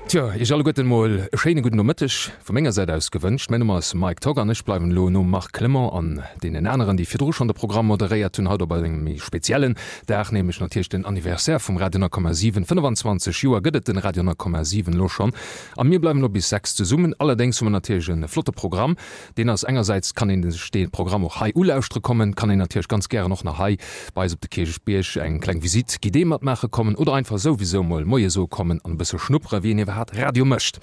Tjo, iech alleguerten mol e schéine gudden Nomëtteg vu menger Säit aus gewënscht. Mäin Numm ass Mike Togg an ech bleiwen elo nom Marc Clement an deenen aneren, déi virdru schonn de Programm moderéiert hunn, haut op engem méi speziellen Dag, nämlech natierlech den Anniversaire vum Radio 10,7. 25 Joer gëtt et den Radio 10,7 elo schonn a mir bleiwen elo bis 6 zesummen. Allerdéngs hu mer natierlech e flotte Programm. Deen ass engersäits kann een sech dee Programm och hei ulauschtere kommen, kann een natierlech ganz gären och nach hei bei eis op de Kierchbierg eng kleng Visite guidée matmaache kommen oder einfach souwisou mol Moie soe kommen an e bësse schnuppere wéi een iwwerhaat Radio mécht.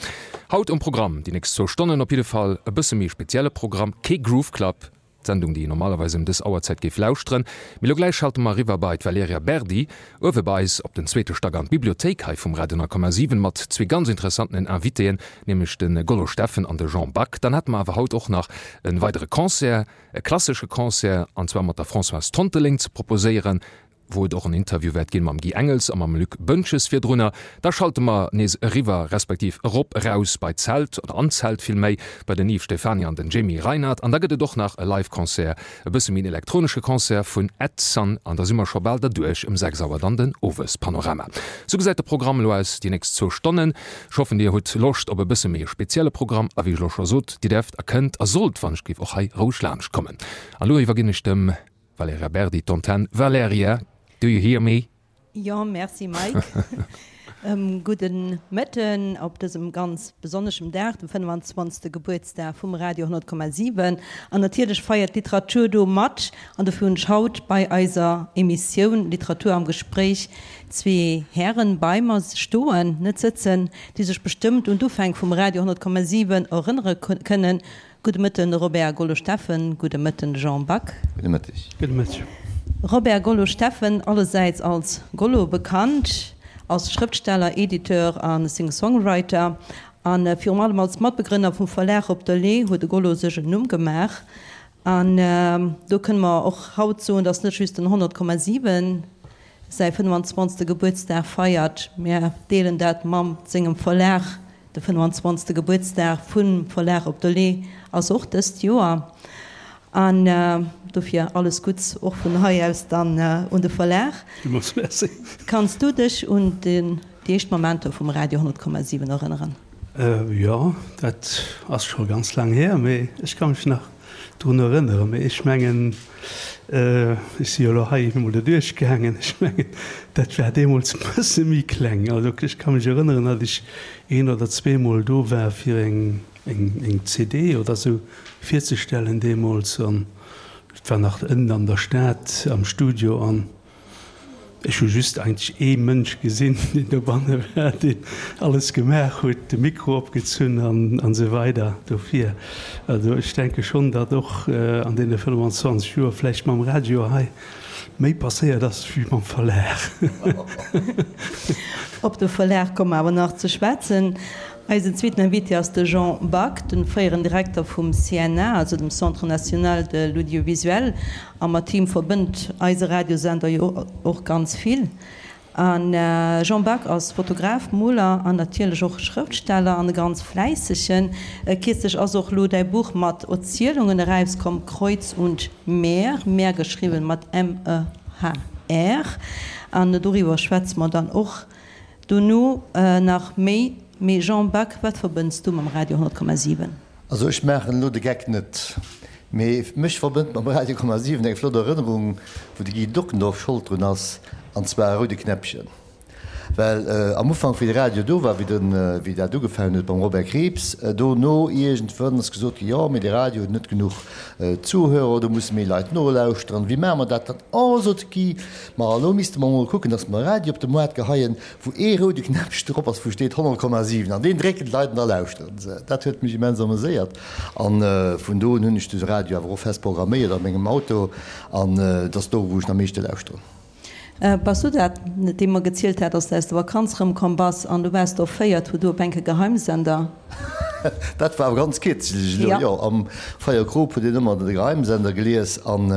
Haut um Programm déi nächst zwou Stonnen op jidde Fall e bësse méi spezielle Programm, kee Groove Club, d'Sendung déi een normalerweis ëm dës Auerzäit géif lauschteren. Mee lo gläich schalte mer eriwwer bei d'Valerija Berdi uewe bei eis op den zweete Stack an d'Bibliothéik hei vum Radio 10,7 mat zwee ganz interessantenen Invitéen, nämlech de Gollo Steffen an de Jean Back. Dann hätte mer awer haut och nach e weidere Concert, e klassesche Concert, an zwar mat der Françoise Tonteling ze proposéieren, wou et och en Interview wäert ginn mam Guy Engels a mam Luc Boentges virdrunner. Da schalte mer nees eriwwer, respektiv erop, eraus bei d'Zelt, oder an d'Zelt villméi, bei den Yves Stephany an den Jamie Reinert. An da gëtt et och nach e Live-Concert, e bësse méi en elektronesche Concert vun Ed Sun. An da si mer scho bal derduerch, ëm 6 Auer dann den Owespanorama. Sou gesäit de Programm elo aus déi nächst zwou Stonnen. Ech hoffen dir hutt Loscht op e bësse méi e spezielle Programm a wéi ech elo scho sot, dir däerft a kënnt a sollt wann ech géif och hei roueg laanscht kommen. An elo iwwerginn ech dem Valerija Berdi d'Antenn. Valerija, do you hear me? Jo, merci Mike. Gudden Mëtten op dësem ganz besonneschem Dag, dem 25. Gebuertsdag vum Radio 100,7. An natierlech feiert d'Literatur do mat. An dofir hunn ech haut bei eiser Emissioun Literatur am Gespréich zwee Hären bei mer stoen, net sëtzen, déi sech bestëmmt un d'Ufäng vum Radio 100,7 erënnere kënnen. Gudde Mëtten Robert Gollo-Steffen, gudde Mëtten Jean Back. Gudde Mëtteg. Gudde Mëtteg. Robert Gollo-Steffen, allesäits als Gollo bekannt, als Schrëftsteller, Editeur a Singer-Songwriter a virum allem als Matbegrënner vum Verlag Op der Lee huet de Gollo sech en Numm gemaach. An do kënne mer och haut soen, datt net just den 100,7 säi 25. Gebuertsdag feiert, mä deelen dat mam sengem Verlag. De 25. Gebuertsdag vum Verlag Op der Lee ass och dëst Joer. An dofir alles Gutts och vun hei aus dann un de Verlag. Villmools Merci. Kanns du dech un déi éischt Momenter vum Radio 100,7 erënneren? Jo, dat ass scho ganz laang hier, mee ech ka mech nach drun erënneren. Mee ech mengen, ech si jo elo hei emol doduerch gaangen, ech mengen, dat war deemools e bësse méi kleng. Also ech ka mech erënneren, datt ech een oder zweemol do war, fir eng, eng CD oder esou virzestellen deemools. An et war nach ënnen an der Stad am Studio. An Ech hu just eigentlech ee Mënsch gesinn, deen dobanne war, deen alles gemaach huet, de Mikro opgezunn an esou weider. Dofir, also ech denke schonn, datt och an deene 25 Joer vläicht mam Radio hei méi passéiert ass wéi mam Verlag. Op de Verlag komme mer awer nach ze schwätzen. Eisen zweeten Invité ass de Jean Back, de fréieren Direkter vum CNA, also dem Centre national de l'audiovisuel. A mat him verbënnt eise Radiosender jo och ganz vill. A Jean Back ass Fotograf, Moler an natierlech och Schrëftsteller an e ganz fläissegen. Kierzlech ass och lo däi Buch mat Erzielungen erauskomm, Kreuz und Meer, Meer geschriwwen mat M-E-H-R. An doriwwer schwätze mer dann och Dono nach méi. Mee Jean Back, wat verbënns du mam Radio 100,7? Also ech maachen elo de Geck net, mee mech verbënnt mam Radio 100,7 eng flott Erënnerung, wou de Guy Dockendorf Schold drun ass, an zwar e roude Knäppchen. Well am Ufank wéi de Radio do war, wéi den, wéi dat ugefaangen huet mam Robert Krieps, dono iergendwann ass gesot ginn, jo mee de Radio huet net genuch Zuhörer, do musse méi Leit nolauschteren, wéi maache mer dat dann? Oh, sot de Guy, Ma elo misste mer emol kucken, dass mer e Radio op de Moart geheien, wou ee roude Knäppchen drop ass, wou steet 100,7, an deen drécken d'Leit an da lauschteren se. Dat huet mech immens ameséiert. A vun do un hunn ech de Radio awer och fest programméiert a mengem Auto, an et ass do, wou ech en am meeschte lauschteren. Bass du dat, dee mer gezielt hat, dass de aus der Vakanz erëmkomm bass an du waars do erféiert, wou du op enke Geheimsender. Dat war awer ganz kierzlech elo, jo. Am Feier Krop huet een ëmmer de Geheimsender gelies an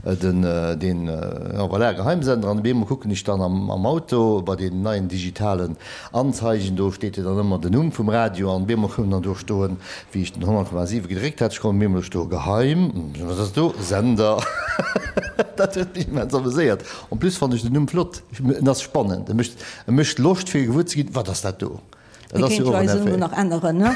den, deen, jo voilà, Geheimsender. An op eemol kucken ech dann am Auto bei deenen neien digitalen Anzeigen, do steet jo dann ëmmer den Numm vum Radio an op eemol koum dann do stoen, wéi ech den 100,7 gedréckt hat, ech koum op eemol do stoe Geheim, wat ass do, Sender. Dat huet mech immens ameséiert. En plus fannen ech den Numm flott, en ass spannend, e mécht, e mécht Loscht fir gewuer ze ginn, wat ass dat do. Dat ass jo och en Effet. Nach änneren, ne?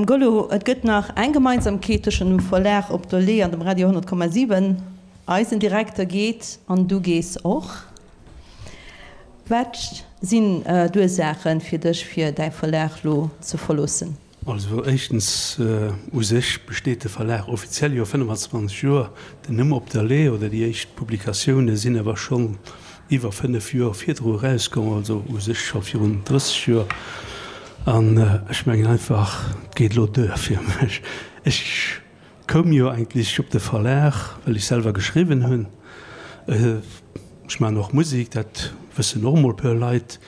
Gollo, et gëtt nach eng Gemeinsamkeet tëschent dem Verlag Op der Lee an dem Radio 100,7, Eisen Direkter geet an du gees och. Wat sinn d'Ursaache fir dech, fir däi Verlag lo ze verloossen? Also éischtens, u sech besteet de Verlag offiziell jo 25 Joer, den Numm Op der Lee oder déi éischt Publikatioune sinn awer schonn iwwer 5 Joer virdru erauskomm, also u sech scho virun 30 Joer. An ech mengen einfach, et geet elo duer fir mech. Ech Koum jo eigentlech op de Verlag, well ech selwer geschriwwen hunn. Ech maachen och Musek, dat wëssen och emol e puer Leit.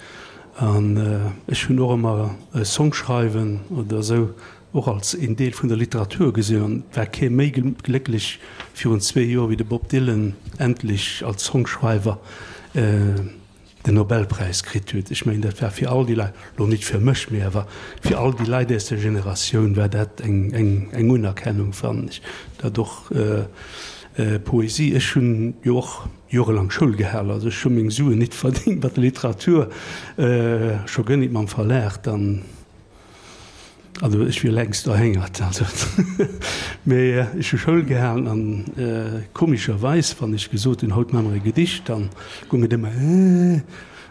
An ech hunn och ëmmer Songschreiwen oder esou och als een Deel vun der Literatur gesinn. An et war kee méi glécklech virun zwee Joer wéi de Bob Dylan endlech als Songschreiwer den Nobelpräis kritt huet. Ech mengen, dat war fir all déi Leit, elo nit fir mech, mee awer fir all déi Leit aus der Generatioun war dat eng Unerkennung, fannen ech. Dat och Poesie, ech hunn jo och jorelang Schoul gehal, also ech hu meng Suen nit verdéngt mat der Literatur, scho guer nit mam Verlag dann. Also ech wier längst erhéngert, also mee ech hu Schoul gehalen an komescherweis, wann ech gesot hunn, haut maache mer e Gedicht, dann goung et ëmmer äh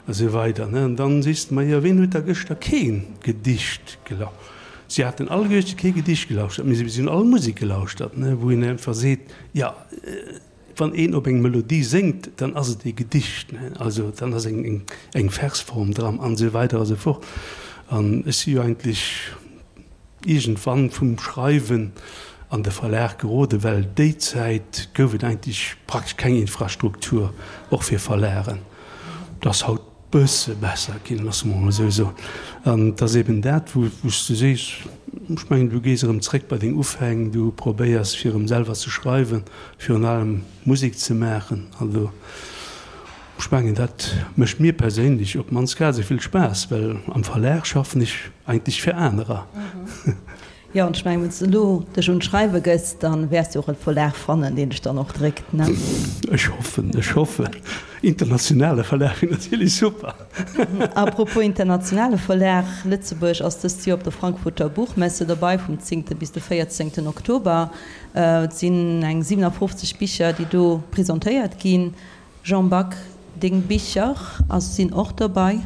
a sou weider, ne. An dann sees de mer, jo ween huet da gëschter kee Gedicht gelauschtert? Si haten alleguerte kee Gedicht gelauschtert, mee si hunn all Musek gelauschtert, ne, wou een einfach seet, jo. Wann een op eng Melodie séngt, dann ass et ee Gedicht, ne? Also dann ass eng eng Versform dran an esou weider a sou fort. An ech si jo eigentlech iergendwann vum Schreiwen an de Verlag geroden, well déi Zäit gouf et eigentlech praktesch keng Infrastruktur, och fir Verlagen. Dat ass haut bësse besser ginn, loosse mer emol esou soen. An et ass eben dat, wou s du sees, ech mengen, du gees erëm zréck bei deng Ufäng, du probéiers fir erëm selwer ze schreiwen, virun allem Musek ze maachen. Also ech mengen, dat mécht mir perséinlech op d'mannst grad esou vill Spaass, well am Verlag schaffen ech eigentlech fir anerer. Jo, an ech mengen, wann s de elo dech un d'Schreiwe gëss, da wäers de och e Verlag fannen, deen dech dann och dréckt, ne? Ech hoffen, ech hoffen. Internationale Verlag wier natierlech super. A propos internationale Verlag, Lëtzebuerg ass dëst Joer op der Frankfurter Buchmesse dobei, vum zéngte bis de véierzéngten Oktober. Et sinn eng 57 Bicher, déi do presentéiert ginn. Jean Back, deng Bicher ass sinn och dobei?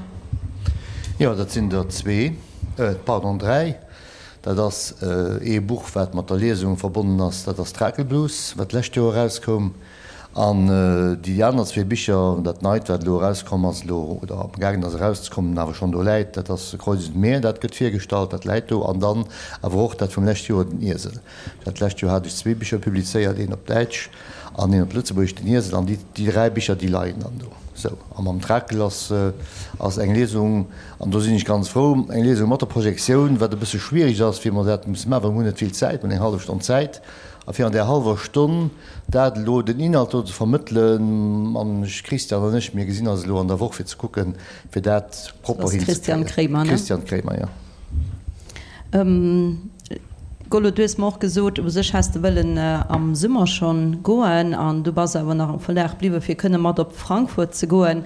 Jo, dat sinn der zwee, pardon, dräi. Dat ass ee Buch, wat mat der Liesung verbonnen ass, dat ass Trakelblues, wat d'lescht Joer erauskoum. An déi aner zwee Bicher, dat neit, wat elo erauskomm ass elo, oder amgaangen ass erauszekommen, awer schonn do läit, dat ass Kreuz und Meer, dat gëtt virgestallt, dat läit do. An dann awer och dat vum lescht Joer, Den Iesel. Dat lescht Joer hat ech zwee Bicher publizéiert, een op Däitsch an een op Lëtzebuergesch, Den Iesel. An déi dräi Bicher, déi leien dann do. Sou, a mam Trakel ass ass eng Liesung, an do sinn ech ganz frou, eng Liesung mat der Projektioun, wat e bësse schwierig ass, fir mer dat musse maachen, well mer hunn net vill Zäit, mer hunn eng hallef Stonn Zäit, a fir an där hallwer Stonn dat elo, den Inhalt do ze vermëttelen, an ech, Christian an ech, mir gesinn eis elo an der Woch fir ze kucken, fir dat propper hinzekréien. Christian Kremer, ne? Christian Kremer, jo. Gollo, du hues mer och gesot, u sech häss de wëllen am Summer schonn goen an du bass awer nach am Verlag bliwwen, fir kënne mat op Frankfurt ze goen.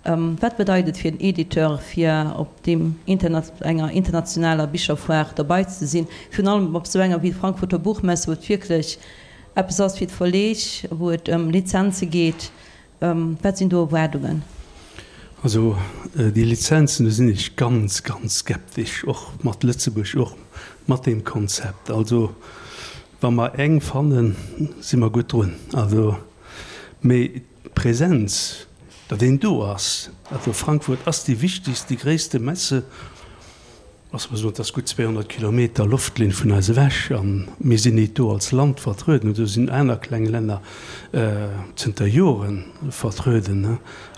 Wat bedeit et fir en Editeur, fir op deem enger internationaler Bicherfoire derbei ze sinn, virun allem op esou enger wéi d'Frankfurter Buchmesse, wou et wierklech eppes ass fir d'Verleeg, wou et ëm Lizenze geet? Wat sinn do Erwaardungen? Also déi Lizenzen, do sinn ech ganz, ganz skeptesch, och mat Lëtzebuerg, och mat deem Konzept. Also wa mer eng fannen, si mer gutt drun. Also, mee d'Präsenz, datt een do ass, also Frankfurt ass déi wichtegst, déi gréisste Messe, Lass mer soen, et ass gutt 200 Kilometer Loftlinn vun eis ewech a mir sinn nit do als Land vertrueden. Do sinn aner kleng Länner zënter Jore vertrueden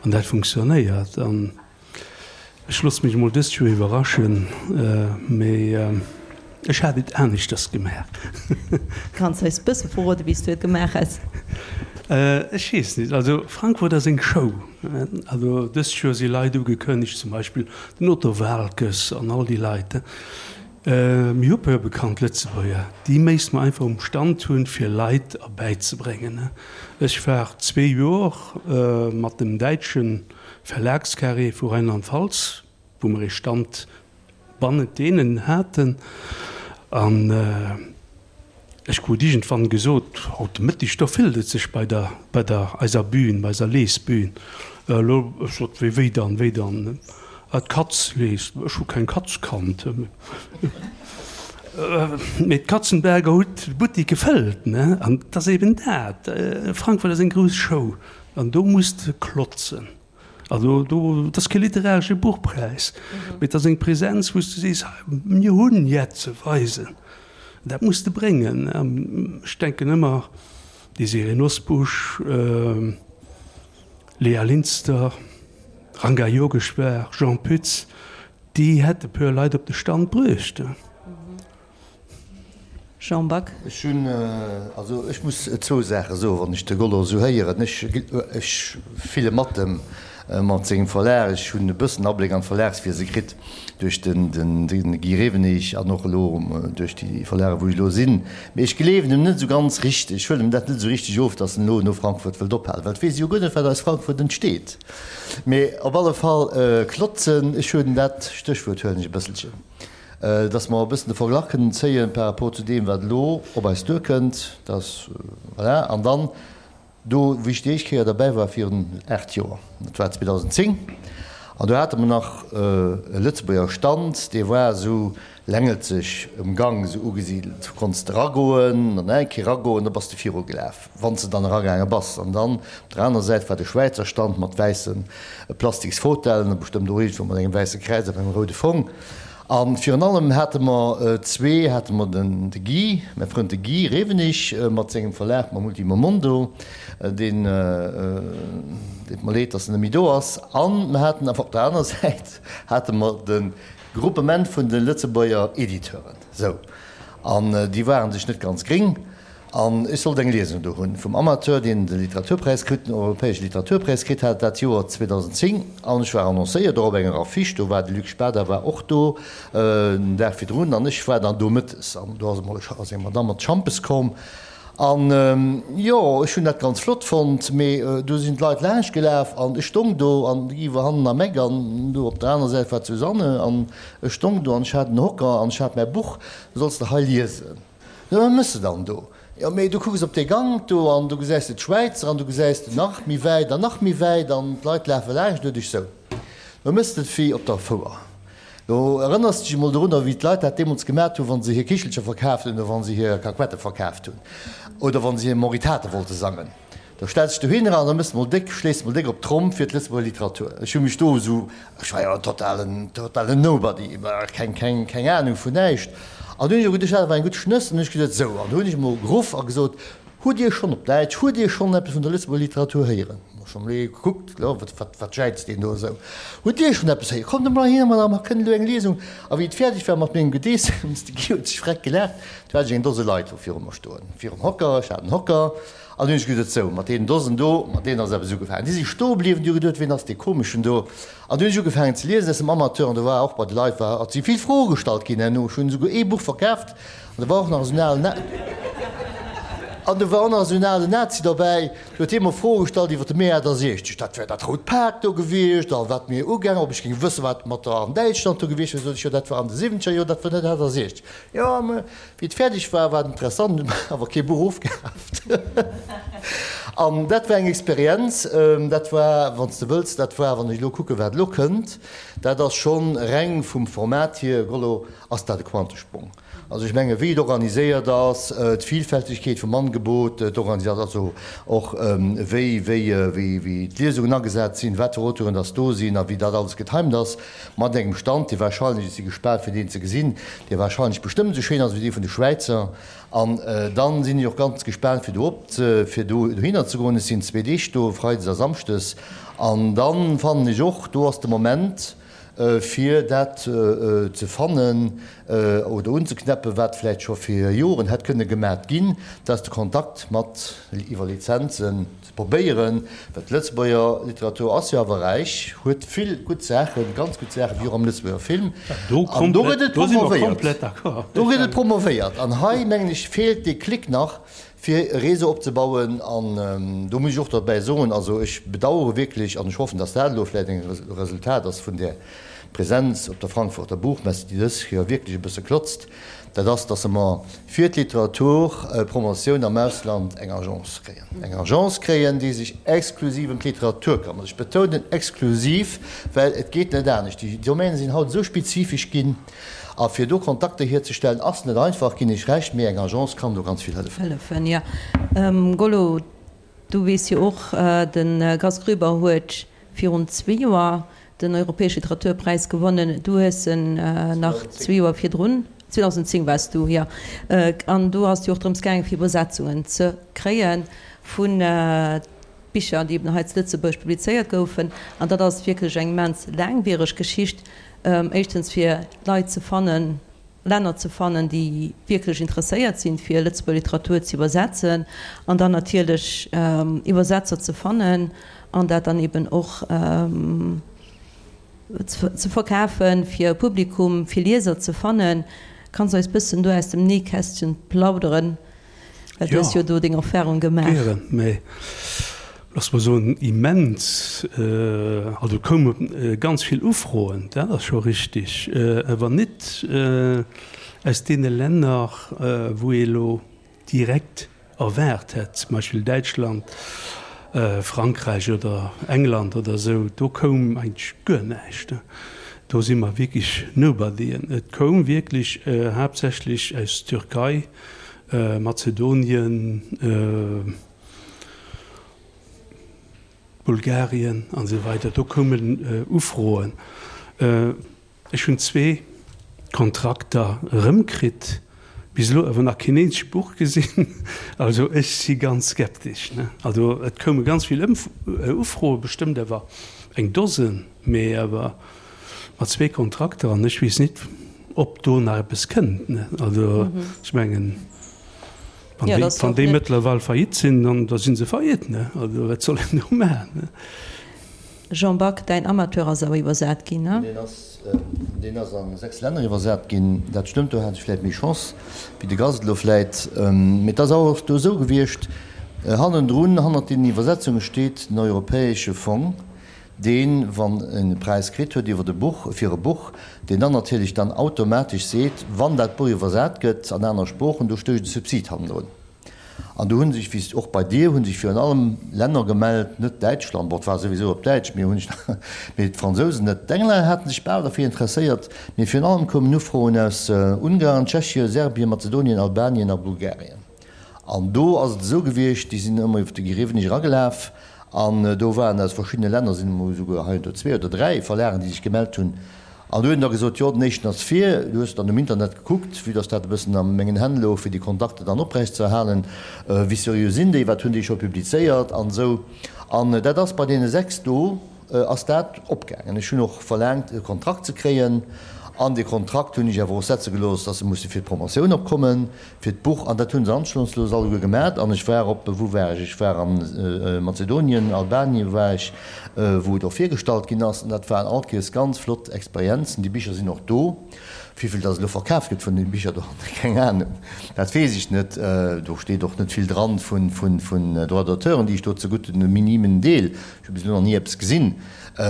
an dat funktionéiert. An ech loosse mech emol dëst Joer iwwerraschen, mee ech hat et aneschters gemaach. Kanns eis bësse verroden, wéi s du et gemaach häss? Ech weess nit. Also Frankfurt ass eng Show. Also dëst Joer si Leit ugekënnegt, zum Beispill den Otto Waalkes an all déi Leit. Mir hu puer bekannt Lëtzebuerger, déi méisst mer einfach um Stand hunn, fir Leit erbäizebréngen. Ech war zwee Joer mat dem däitsche Verlagscarré vu Rheinland-Pfalz. wou mer ee Stand bannent deenen haten. An ech krut iergendwann gesot, haut de Mëtteg, do fëllt et sech bei der, bei der eiser Bühn, bei eiser Lesbühn. Elo, ech sot, wéi, wéi dann, wéi dann? Ah, d'Katz leest. Ech hu keng Katz kannt. Mee d'Katzenberger huet de Buttik gefëllt, ne? An et ass eben dat, Frankfurt ass eng grouss Show an do muss de klotzen. Also do, et ass kee literaresche Buchpräis, mee et ass eng Präsenz, wou s de sees, hei, mir hunn jett ze weisen. Dat muss de bréngen. Ech denken ëmmer Désirée Nosbusch, Léa Linster, Ranga Yogeshwar, Jean Pütz, déi hätte puer Leit op de Stand bruecht. Jean Back. Ech hunn, also ech muss zwou Saache soen, wann ech de Gollo esou héieren. Ech, ech fille mat em, mat sengem Verlag. Ech hunn e bëssen Abléck an d'Verlagswiese kritt duerch den, den, de Guy Rewenig an och elo duerch déi Verlage wou ech elo sinn. Mee ech gleewen em net esou ganz richteg, ech huelen em dat net esou richteg of, datt en elo no Frankfurt wëllt ophalen, well et weess e jo guer net, wat aus Frankfurt entsteet. Mee op alle Fall klotzen, ech hunn dat Stéchwuert huelen ech e bësselchen. Dass mer e bëssen de Verglach kënnen zéien par rapport zu deem, wat elo op eis duerkënnt, dass, voilà. An dann do, wéi ech déi éischt Kéier derbäi war virun 8 Joer, dat war 2010, an do hate mer nach e Lëtzebuerger Stand, dee war esou längelzeg um Gang esou ugesidelt. Du konns de eragoen an eng Kéier eragoen, da bass de virugelaf, wann s de dann eragaange bass. An dann op der anerer Säit war de Schwäizer Stand mat wäisse plastiks Fauteuilen a bestëmmt och iergendwou mat engem wäisse Kräiz op engem roude Fong. A virun allem hate mer zwee, hate mer den de Guy, mäi Frënd de Guy Rewenig mat sengem Verlag, mam Ultimo Mondo, deen, deet mer leed, datt en net méi do ass. A mer haten awer op der aner Säit hate mer de Gruppement vun de Lëtzebuerger Editeuren. Sou. An déi ware sech net ganz gréng. An ech sollt eng Liesung do hunn vum Amateur, deen de Literaturpräis kritt, den europäesche Literaturpräis kritt hat dat Joer 2010. An ech war annoncéiert, och op enger Affiche, do war de Luc Spada war och do den Dag virdrun an ech war dann do mëttes. An do ass emol ass eng Madamm mat Schampes komm. An jo, ech hunn dat ganz flott fonnt, mee do sinn d'Leit laanscht gelaf an ech stong do an de Guy war hannen am Eck an do op der aner Säit war d'Susanne an ech stong do an ech hat en Hocker an ech hat mäi Buch, Du solls de hei liesen. Jo, wat méchs de dann do? Jo, mee du kucks op dee Gank do an do gesäis de d'Schwäizer an du gesäis de nach méi wäit an nach méi wäit an d'Leit lafe laanscht no dech. Sou, do méchs de et wéi op der Fouer. Do erënners de dech emol dorunner, wéi d'Leit dat deemools gemat hunn, wa se hir Kichelcher verkaaft hunn oder wa se hir Kakuette verkaaft hunn oder wa se hir Moritate wollte sangen. Da stells dech dohinner an da mëss de mol déck, schléis de mol déck op d'Tromm fir d'Lëtzebuerger Literatur. Ech hu mech do esou, ech war jo en totalen, totalen Nobody, keng, keng, keng Anung vun näischt. An du hunn ech och geduecht, dat war eng gutt Schnëss. An hunn ech gesot, sou, an du hunn ech emol geruff a gesot, Hutt Dir schonn, op Däitsch, hutt Dir schonn eppes vun der Lëtzebuerger Literatur héieren? Hu schonn emol ee gekuckt, jo, wat, wat, wat jäizt deen do esou? Hutt Dir schonn eppes héieren? Kommt emol heihinner, Madame, mer kënnen elo eng Liesung. A wéi et fäerdeg war mat mengem Gedeessems, de Guy huet sech freck gelaacht, du hat ech eng Dose Leit do viru mer stoen, virum Hocker, ech hat en Hocker, An hunn ech geduet, sou, mat deenen Dosen do, mat deenen ass eppes ugefaangen. Déi si stoe bliwwen, déi hu geduet, ween ass dee Komeschen do? An du hunn ech ugefaangen ze liesen aus dem Amateur an do war och bei de Leit war, si vill Froe gestallt ginn herno. Ech hunn esouguer ee Buch verkaaft an do war och nach esou en alen, an do war och nach esou en alen Nazi dobäi, do huet hie mer Froe gestallt iwwer de Mee 68, dat wär dat rout Pak do gewiescht a wat mir ugaangen, ob ech géing wëssen, wat mat der an Däitschland do gewiescht wär. Sot ech, jo, dat war an de siwwenzeger Joer, dat war net 68. Jo, mä Wéi et fäerdeg war, war et interessant, hunn awer kee Buch ofkaaft. An dat war eng Experienz, dat war, wann s de wëlls, dat war, wann ech elo kucken, wat elo kënnt, dat ass schonn reng vum Format hier, Gollo, ass dat e Quantesprong. Also ech menge wéi et organiséiert ass, d'Vilfältegkeet vum Angebot, d'Organisat, also och wéi, wéi, wéi, wéi d'Liesungen agesat sinn, wat fir Auteuren dass do sinn a wéi dat alles getimed ass, Mat engem Stand, dee wahrscheinlech, ech si gespaant fir deen ze gesinn, dee wahrscheinlech bestëmmt esou schéin ass wéi dee vun de Schwäizer. An dann sinn ech och ganz gespaant fir do op ze, fir do dohinner ze goen. Ech sinn zwee Deeg do, Freides a Samschdes. An dann fannen ech och, do ass de Moment fir dat ze fannen oder unzeknäppen, wat vläicht scho fir Joren hätt kënne gemat ginn, dat ass de Kontakt mat iwwer Lizenzen. Ze probéieren, well d'Lëtzebuerger Literatur ass jo awer räich, huet vill gutt Saachen, ganz gutt Saachen, wéi och am Lëtzebuerger Film. An do gëtt et promovéiert. Do gëtt et promovéiert. An hei, mengen ech, feelt dee Klick nach, fir e Réseau opzebauen. An do muss ech och derbäi soen, also ech bedauere wierklech, an ech hoffen, datt dat elo vläicht eng Resultat ass vun där. Presenz op der Frankfurter Buchmesse, déi dës Joer wierklech e bësse klotzt, dat ass, dass mer fir d'Literaturpromotioun am Ausland eng Agence kréien. Eng Agence kréien, déi sech exklusiv ëm d'Literatur këmmert. Ech betounen exklusiv, well et geet net anescht. Déi Domäne sinn haut esou spezifesch ginn, a fir do Kontakter hierzestellen, ass net einfach, ginn ech Recht, mee eng Agence kann do ganz vill hëllefen. Hëllefen, jo. Gollo, du weess jo och, de Gast Groeber huet virun zwee Joer den Europäesche Literaturpräis gewonnen. Du hues en nach zwee Joer virdrun, 2010 waars du, jo. An do ass et jo och drëms gaangen, fir Iwwersetzungen ze kréie vu Bicher, déi eben hei zu Lëtzebuerg publizéiert goufen. An dat ass wierklech eng immens laangwiereg Geschicht, éischtens fir Leit ze fannen, Länner ze fannen, déi wierklech interesséiert sinn, fir Lëtzebuerger Literatur ze iwwersetzen, an dann natierlech Iwwersetzer ze fannen an dat dann eben och ze verkafen, fir e Publikum, fir Lieser ze fannen. Kanns eis bëssen do aus dem Nähkästchen plauderen? Well du hues jo do deng Erfahrung gemaach. Gären, mä looss mer soen, immens, also koume ganz vill Ufroen, dat ass scho richtig, awer net aus deene Länner, wou ee elo direkt erwaart hätt, zum Beispill Däitschland, Frankräich oder England oder esou, do koum eigentlech guer näischt. Do si mer wierklech Nobodyen. Et koum wierklech haaptsächlech aus Türkei, Mazedonien, Bulgarien an esou weider, do koumen Ufroen. Ech hunn zwee Kontrakter erëmkritt, bis elo awer nach keen eenzegt Buch gesinn. Also ech si ganz skeptesch. Also et koume ganz vill Ufroen, bestëmmt awer eng Dosen, mee awer Mat zwee Kontrakter an ech weess nit, ob do nach eppes kënnt. Also ech mengen, wann déi, wann déi mëttlerweil faillite sinn, dann da si se faillite. Ne? Also wat soll een do maachen? Ne? Jean Back, däin Amateur ass awer iwwersat ginn, ne? Deen ass, deen ass a 6 Länner iwwersat ginn. Dat stëmmt, do hat ech vläit méi Chance wéi de Gast elo vläit. Mee et ass awer och do esou gewiescht, hannendrun, hannert deenen Iwwersetzunge steet den Europäesche Fong, deen, wann en e Präis kritt huet iwwert e Buch, fir e Buch, deen dann natierlech dann automatesch seet, wann dat Buch iwwersat gëtt an aner Sproochen, do stécht e Subsid hannendrun. An do hu sech, wéi och bei dir, hu sech virun allem Länner gemellt, net Däitschland, bon, et war souwisou op Däitsch, mee hunn sech, mee d'Fransousen net, d'Englänner hate sech bal derfir interesséiert, mee virun allem koumen Ufroen aus Ungarn, Tschechien, Serbien, Mazedonien, Albanien a Bulgarien. An do ass et esou gewiescht, déi sinn ëmmer iwwer de Guy Rewenig eragelaf an do waren aus verschiddene Länner, sinn emol esouguer heiansdo zwee oder dräi Verlagen, déi sech gemellt hunn. An do huet en da gesot, jo, den éischten ass vir. Du hues dann um Internet gekuckt, vue dass dat e bëssen a mengen Hänn louch, fir déi Kontakter dann oprechtzeerhalen, wéi seriö sinn déi, wat hunn déi scho publizéiert an esou. An dat ass bei deene sechs do ass dat opgaangen. Ech hunn och verlaangt, e Kontrakt ze kréien an dee Kontrakt hunn ech awer och setze gelooss, dass se musse fir d'Promotioun opkommen. Fir d'Buch, an dat hu se anstandslos alleguer gemat. An ech war op, wou war ech? Ech war a Mazedonien, Albanien war ech, wou et och virgestallt ginn ass. An dat waren all Kéiers ganz flott Experienzen. Déi Bicher sinn och do. Wéivill dass elo verkaf gëtt vun deene Bicher do, keng Ahnung, dat weess ech net. Do steet och net vill dran vun Droits d'auteuren, déi ech do zegutt hunn, e minimen Deel. Ech hu bis elo nach ni eppes gesinn.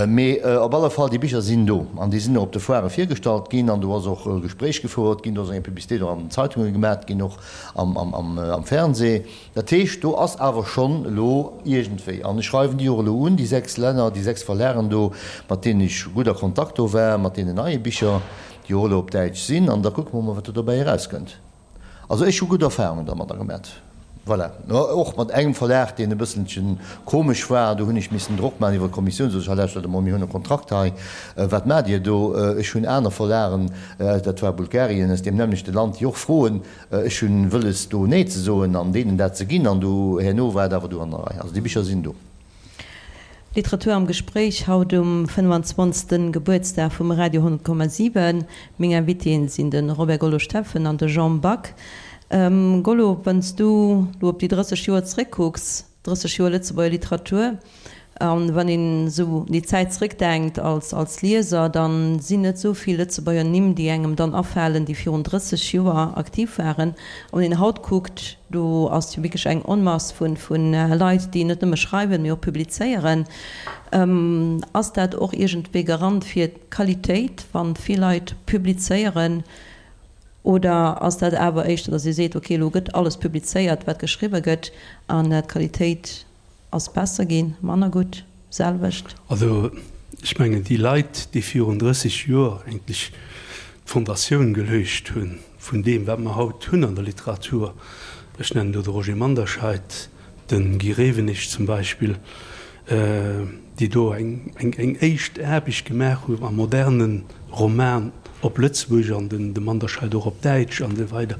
Mee op alle Fall, déi Bicher sinn do an déi sinn och op de Foirë virgestallt ginn an do ass och e Gespréich gefouert ginn, do ass eng Publicitéit och an den Zeitunge gemat ginn, och am Fernseh. Dat heescht, do ass awer schonn elo iergendwéi, an ech schreiwen déi och elo un, déi 6 Länner, déi 6 Verlagen do, mat deenen ech gutt a Kontakt do war, mat deenen neie Bicher, déi och elo op Däitsch sinn, an da kucke mer mol, wat do dobäi erauskënnt. Also ech hu gutt Erfahrungen dermadder gemat. Voilà. Och mat engem Verlag, deen e bësselchen komesch war. Do hunn ech missen Drock maachen iwwer d'Kommissioun, sot ech, hei lauschtert emol, mir hunn e Kontrakt hei, wat maacht Dir do? Ech hunn aner Verlagen, dat war Bulgarien, aus deem nämmlechte Land, déi och froen. Ech hunn wëlles do Nee ze soen an deenen dat ze ginn. An do herno war et awer du an der Rei. Also déi Bicher sinn do. Literatur am Gespréich, haut um 25. Gebuertsdag vum Radio 100,7. Meng Invitéen sinn de Robert Gollo Steffen an de Jean Back. Gollo, wann s du lo op déi 30 Joer zeréckkucks, 30 Joer Lëtzebuerger Literatur, An wann een esou un déi Zäit zrëckdenkt als als Lieser, da sinn net esou vill Lëtzebuerger Nimm, déi engem dann afalen, déi virun 30 Joer aktiv waren. A wann een haut kuckt, do ass jo wierklech eng Onmass vu vu Leit, déi net nëmme schreiwen, mee och publizéieren. Ass dat och iergendwéi Garant fir d'Qualitéit, wann vill Leit publizéieren? Oder ass dat awer éischter, datt ee seet, okay, elo gëtt alles publizéiert, wat geschriwwe gëtt, an d'Qualitéit Ass besser ginn, manner gutt, selwecht? Also ech mengen déi Leit, déi virun 30 Joer eigentlech d'Fondatioun geluecht hu vun deem wat mer haut hunn an der Literatur, ech nennen do de Roger Manderscheid, de Guy Rewenig zum Beispill, déi do eng eng éischt Aarbecht gemaach hu am moderne Roman op Lëtzebuergesch an de Manderscheid och op Däitsch an esou weider,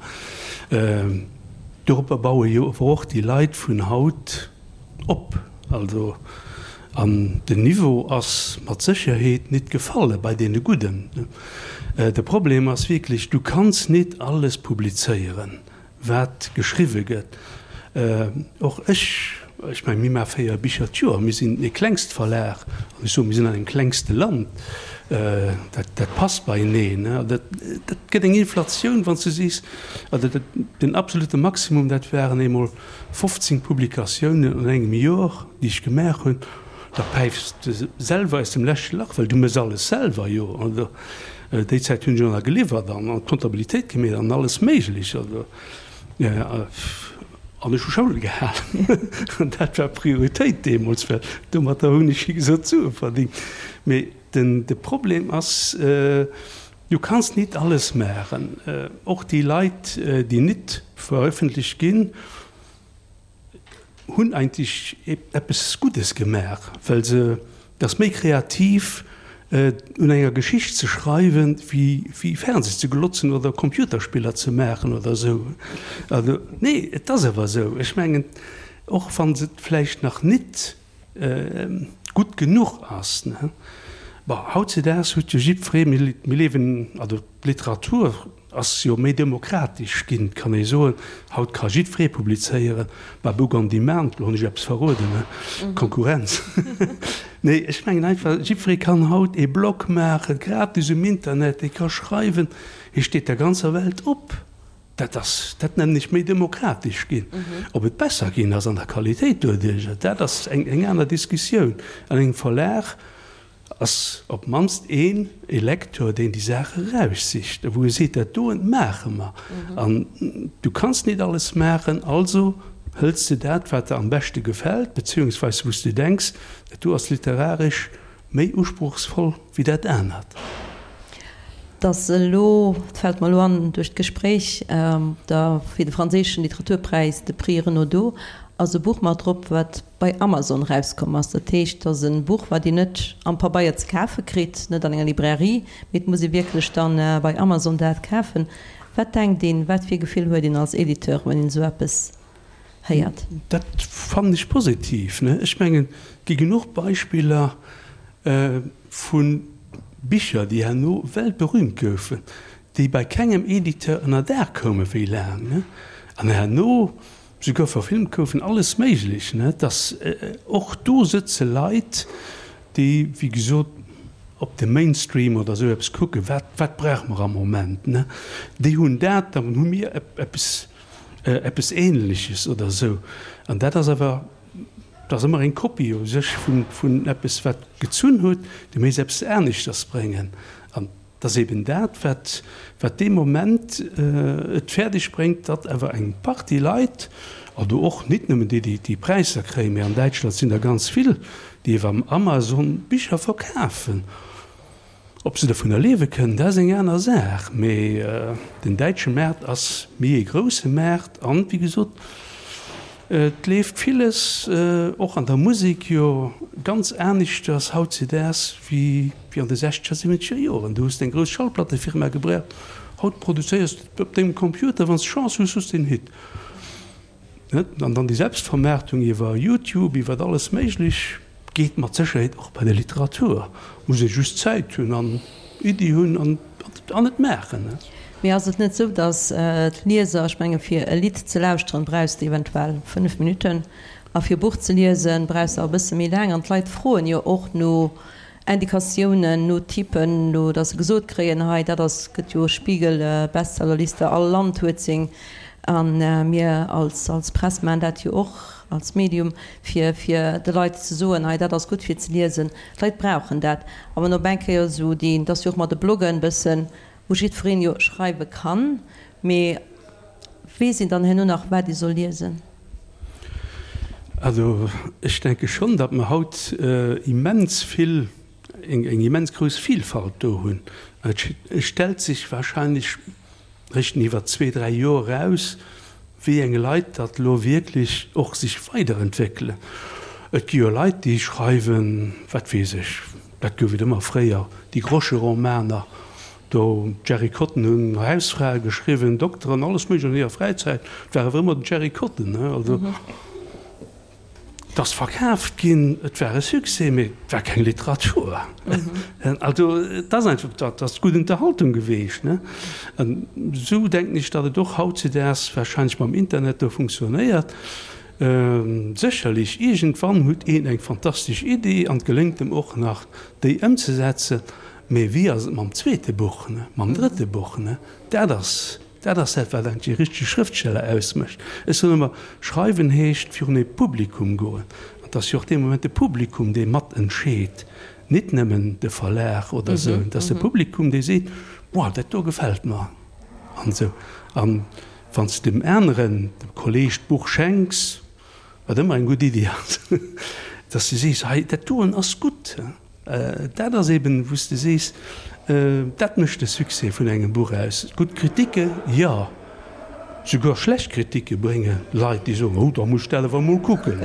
Doropper baue jo awer och déi Leit vun haut op. Also, an den Niveau ass mat Sécherheet nit gefalle bei deene Gudden. De Problem ass wierklech, du kanns nit alles publizéieren, wat geschriwwe gëtt. Och ech, ech mengen, mir maache 4 Bicher d'Joer, mir sinn e Klengstverlag, an ech soen, mir sinn an engem klengste Land, dat, dat passt beieneen. Dat, dat gëtt eng Inflatioun, wann s du sees, Also den absolute Maximum, dat waren eemol 15 Publikatiounen an engem Jor, déi ech gemaach hunn. Da päifs de selwer aus dem leschte Lach, well du méchs alles selwer, jo. Also déi Zäit hunn ech och nach geliwwert an d'Kontabilitéit gemeet an alles Méiglech. Also an ech hu Schoul gehalen. An dat war Prioritéit deemools, well domatter hunn ech, wéi gesot, Sue verdingt. Mee den de Problem ass, Du kanns nit alles maachen. Och déi Leit, déi nit verëffentlecht ginn, hunn eigentlech eppes Guddes gemaach, well se, et ass méi kreativ un enger Geschicht ze schreiwen, wéi Fernseh ze glotzen oder Computerspiller ze maachen oder esou. Also, nee, et ass awer esou. Ech mengen, och wa se et vläicht nach nit gutt genuch ass. Bon, hautzedaags huet jo jiddweree, mir liewen, also d'Literatur ass jo méi demokratesch ginn, kann ee soen. Haut ka jiddweree publizéieren, bei Book on Demand, elo hunn ech eppes verroden, ne, Konkurrenz. Nee, ech mengen einfach, jiddweree kann haut ee Blog maachen, gratis um Internet, dee ka schreiwen, hie steet der ganzer Welt op. Dat ass, dat nennen ech méi demokratesch ginn. Ob et besser ginn ass an der Qualitéit doduerjer, dat ass eng eng aner Diskussioun. An engem Verlag ass op d'mannst een e Lecteur, deen déi Saach eraussicht a wou e seet, dat doen maache mer. An du kanns nit alles maachen, also hëls de dat, wat der am beschte gefält, beziehungsweise wou s de denks, dat do ass literaresch Méi usprochsvoll wéi dat anert. Dass elo, et fält mer elo an duerch d'Gespréich, da fir de franséischen Literaturpräis, de Prix Renaudot, ass e Buch mat drop, wat bei Amazon erauskomm ass. Dat heescht, et ass e Buch, wat een net am Pabeier ze kafe kritt, net an enger Librairie, mee et muss ee wierklech dann bei Amazon dat kafen. Wat denkt een, wat fir e Gefill huet een als Editeur, wann een esou eppes héiert? Dat fannen ech positiv. Ech mengen, et gi genuch Beispiller vu Bicher, déi herno weltberühmt goufen, déi bei kengem Editeur ënner Daach koume wéi laang, an herno souguer verfilmt goufen, alles méiglech. Dass och do sëtze Leit, déi, wéi gesot, op de Mainstream oder esou eppes kucken, wat, wat brauche mer am Moment, déi hunn dat, dann hu mir eppes eppes Ähnleches oder esou. An dat ass awer, dat ass ëmmer eng Kopie u sech vun, vun eppes, wat gezunn huet, du méiss eppes aneschters bréngen. An et ass eben dat, wat, wat dee Moment et fäerdeg bréngt, datt awer eng Partie Leit, also och nit nëmmen déi, déi déi Präisser kréien, mä an Däitschland sinn der ganz vill, déi iwwer Amazon Bicher verkafen. Ob se dovunner liewe kënnen, dat ass eng aner Saach, mee den däitsche Maart ass méi ee grousse Maart an, wéi gesot, et leeft villes, och an der Musek jo, ganz aneschters hautzedaags wéi an de sechzeger, siwwenzeger Joren. Du hues eng grouss Schallplattefirma gebraucht, haut produzéiers de op dengem Computer, wann s de Chance hues, hues de en Hit. An dann déi Selbstvermaartung iwwer Youtube, iwwer alles Méiglech, geet mat Sécherheet och bei der Literatur. Muss ee just Zäit hunn an Iddi hunn an et maachen. Mee ass et net esou, datt d'Lieser, ech menge fir e Lidd ze lauschteren, brauchs de eventuell 5 Minutten. A fir e Buch ze liesen, brauchs de awer e bësse méi laang. An d'Leit froen jo och no Indikatiounen, no Typen, no datt se gesot kréien, hei dat ass, gëtt jo Spiegel Bestsellerliste, all Land huet seng. A mir als als Press maachen dat jo och als Medium, fir fir de Leit ze soen, hei dat ass gutt fir ze liesen. D'Leit brauchen dat. A wann op eng Kéier esou déi, et ass jo och mat de Bloggen e bëssen, wou jiddwereen jo schreiwe kann, mee weess een dann herno nach wat ee soll liesen? Also ech denke schonn, datt mer haut immens vill, eng immens grouss Vielfalt do hunn. Et stellt sech wahrscheinlech réischt iwwer zwee, dräi Joer eraus, wéi eng Leit datt elo wierklech och sech weiderentwéckelen. Et gi jo Leit, déi schreiwen, wat weess ech, dat gouf et ëmmer fréier, déi Groscheromaner, Do, d'Jerry Cotton hunn Hausfrae geschriwwen, Dokteren, alles méiglech an hirer Fräizäit. Et war awer ëmmer den Jerry Cotton, ne? Also, et ass verkaaft ginn, et war e Succès, mee et war keng Literatur. Also, et ass einfach, dat ass gutt Unterhaltung geweecht, ne? An esou denken ech, datt et och hautzedaags wahrscheinlech mam Internet do funktionéiert. Sécherlech, iergendwann huet een eng fantastesch Idee an et geléngt em och nach, déi ëmzesetzen. Mee wéi ass et mam zweete Buch, mam drëtte Buch? Dat ass, dat ass dat, wat eigentlech e richtege Schrëftsteller ausmécht. Ech soen ëmmer, Schreiwen heescht virun ee Publikum goen. An et ass jo och dee Moment de Publikum, dee mat entscheet, nit nëmmen de Verlag oder esou. Et ass de Publikum, dee seet, Boah, dat do gefält mer an esou. An wann s de dem aneren, dem Kolleeg d'Buch schenks, wat ëmmer eng gutt Iddi ass, dass de sees, Hei, dat doen ass gutt. Dat ass eben, wou s de sees, dat mécht de Succès vun engem Buch aus. Gutt Kritike, jo. Souguer schlecht Kritike brénge Leit, déi soen, oh, da muss ech dat awer emol kucken.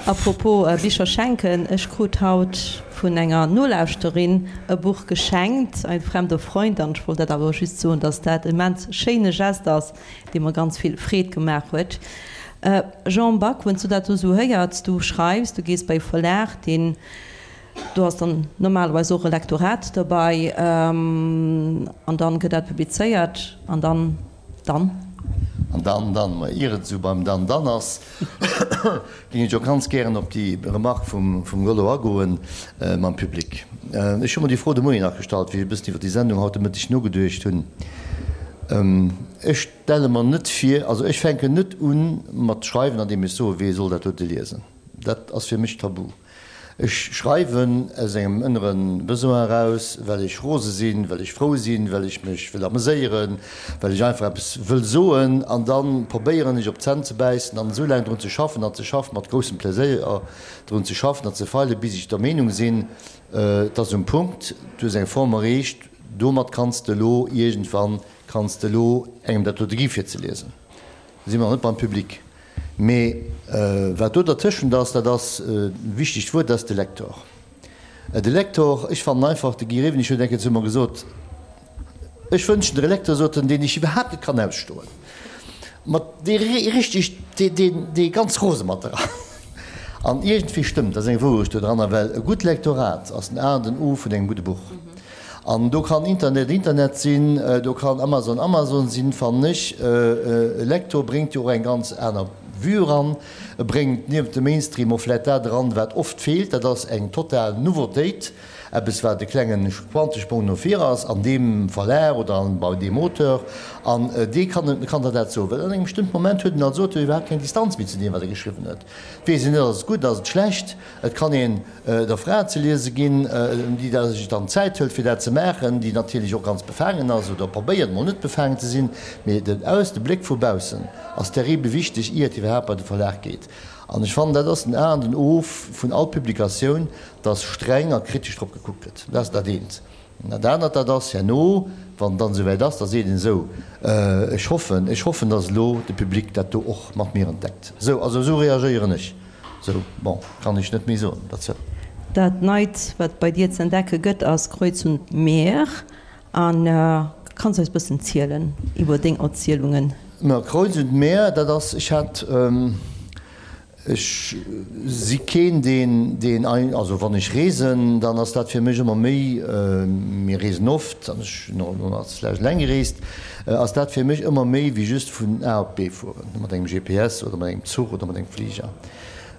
A propos Bicher schenken, ech krut haut vun enger Nolauschterin e Buch geschenkt, Ein fremder Freund, an ech wollt dat awer just soen, dass dat immens schéine Geste ass, dee mer ganz vill Freed gemaach huet. Jean Back, wann s du dat do esou héiers, du schreifs, du gees bei e Verlag, deen, do ass dann normalerweis och e Lektorat derbei, an dann gëtt dat publizéiert, an dann, dann? An dann, dann, ma ier et esou beim dann, dann ass, géing ech och ganz gären op déi Remarque vum, vum Gollo agoen mam Public. Ech hu mer déi Fro de Moien nach gestallt, wéi ech e bëssen iwwer déi Sendung haut de Mëtteg nogeduecht hunn. Ech stelle mer net vir, also ech fänken net u mat schreiwen, andeem ech soe wee soll dat dote liesen. Dat ass fir mech tabu. Ech schreiwen aus engem ënnere Besoin eraus, well ech rose sinn, well ech frou sinn, well ech mech wëll ameséieren, well ech einfach eppes wëll soen. An da probéieren ech op d'Zänn ze bäissen an esou laang drun ze schaffen an ze schaffen, mat groussem Pleséier drun ze schaffen an ze feilen, bis ech der Meenung sinn, et ass um Punkt, du hues eng Form erreecht, domat kanns de elo iergendwann Kanns de elo engem dat dote gi fir ze liesen? Da si mer nach net beim Public. Mee wat do dertëschent ass, dat ass e wichtegt Wuert, dat ass de Lektor. De Lektor, ech fannen einfach, de Guy Rewenig huet eng Kéier zu mer gesot, Ech wënschen der e Lektor, sot en, deen ech iwwerhaapt net kann ausstoen, mat dee richteg, dee, dee ganz rose mat der ass. An iergendwéi stëmmt, dat ass eng Wourecht do dranner, well e gutt Lektorat ass den A an den O vun engem gudde Buch. An do kann Internet Internet sinn, do kann Amazon Amazon sinn, fannen ech. E Lektor bréngt jo och eng ganz aner Vue eran. E bréngt niewent dem Mainstream och vläit dat eran, wat oft feelt, dat ass eng total Nouveautéit, eppes wat e klengen Quantesprong no vir ass an deem Verlag oder bei deem Auteur. An dee kann kann der dat soen, well an engem bestëmmten Moment huet en als Auteur iwwerhaapt keng Distanz méi zu deem, wat e geschriwwen huet. Et weess een net, ass et gutt, ass et schlecht. Et kann een der Fra ze liese ginn, déi da sech dann d'Zäit hëlt fir dat ze maachen, déi natierlech och ganz befaangen ass oder probéiert mol net befaangen ze sinn, mee den Aus, de Bléck vu baussen ass terribel wichteg, ier et iwwerhaapt bei de Verlag geet. An ech fannen, dat ass den A an den O vun all Publikatioun, dass streng a kritesch drop gekuckt gëtt. Dat ass dat eent. An dat anert, dat ass herno, wann et dann esouwäit ass, da seet een esou, Ech hoffen, ech hoffen, dass elo de Public dat do och mat mir entdeckt. Esou, also esou reagéieren ech. Esou, bon, kann ech net méi soen derzou. Dat Neit, wat bei dir ze entdecke gëtt, ass Kreuz und Meer. A kanns eis bëssen zielen iwwer deng Erzielungen? Ma Kreuz und Meer, dat ass, ech hat, Ech si keen, deen, deen, also wann ech reesen, dann ass dat fir mech ëmmer méi, mir reesen oft an ech hunn och elo nach zulescht eleng gereest, ass dat fir mech ëmmer méi wéi just vun A op B fueren, mat engem GPS oder mat engem Zuch oder mat engem Fliger.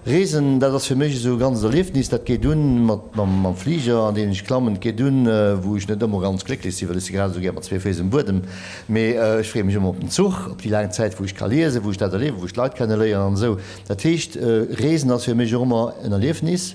Reesen, dat ass fir mech esou e ganzt Erliefnis. Dat geet un mat mam Fliger, an deen ech klammen. Et geet un, wou ech net ëmmer ganz glécklech sinn, well ech si grad esou gär mat zwee Féiss um Buedem. Mee ech freeë mech ëmmer op den Zuch, op déi laang Zäit, wou ech ka liesen, wou ech dat erliewen, wou ech d'Leit kenneléieren an esou. Dat heescht, Reesen ass fir mech och ëmmer en Erliefnis.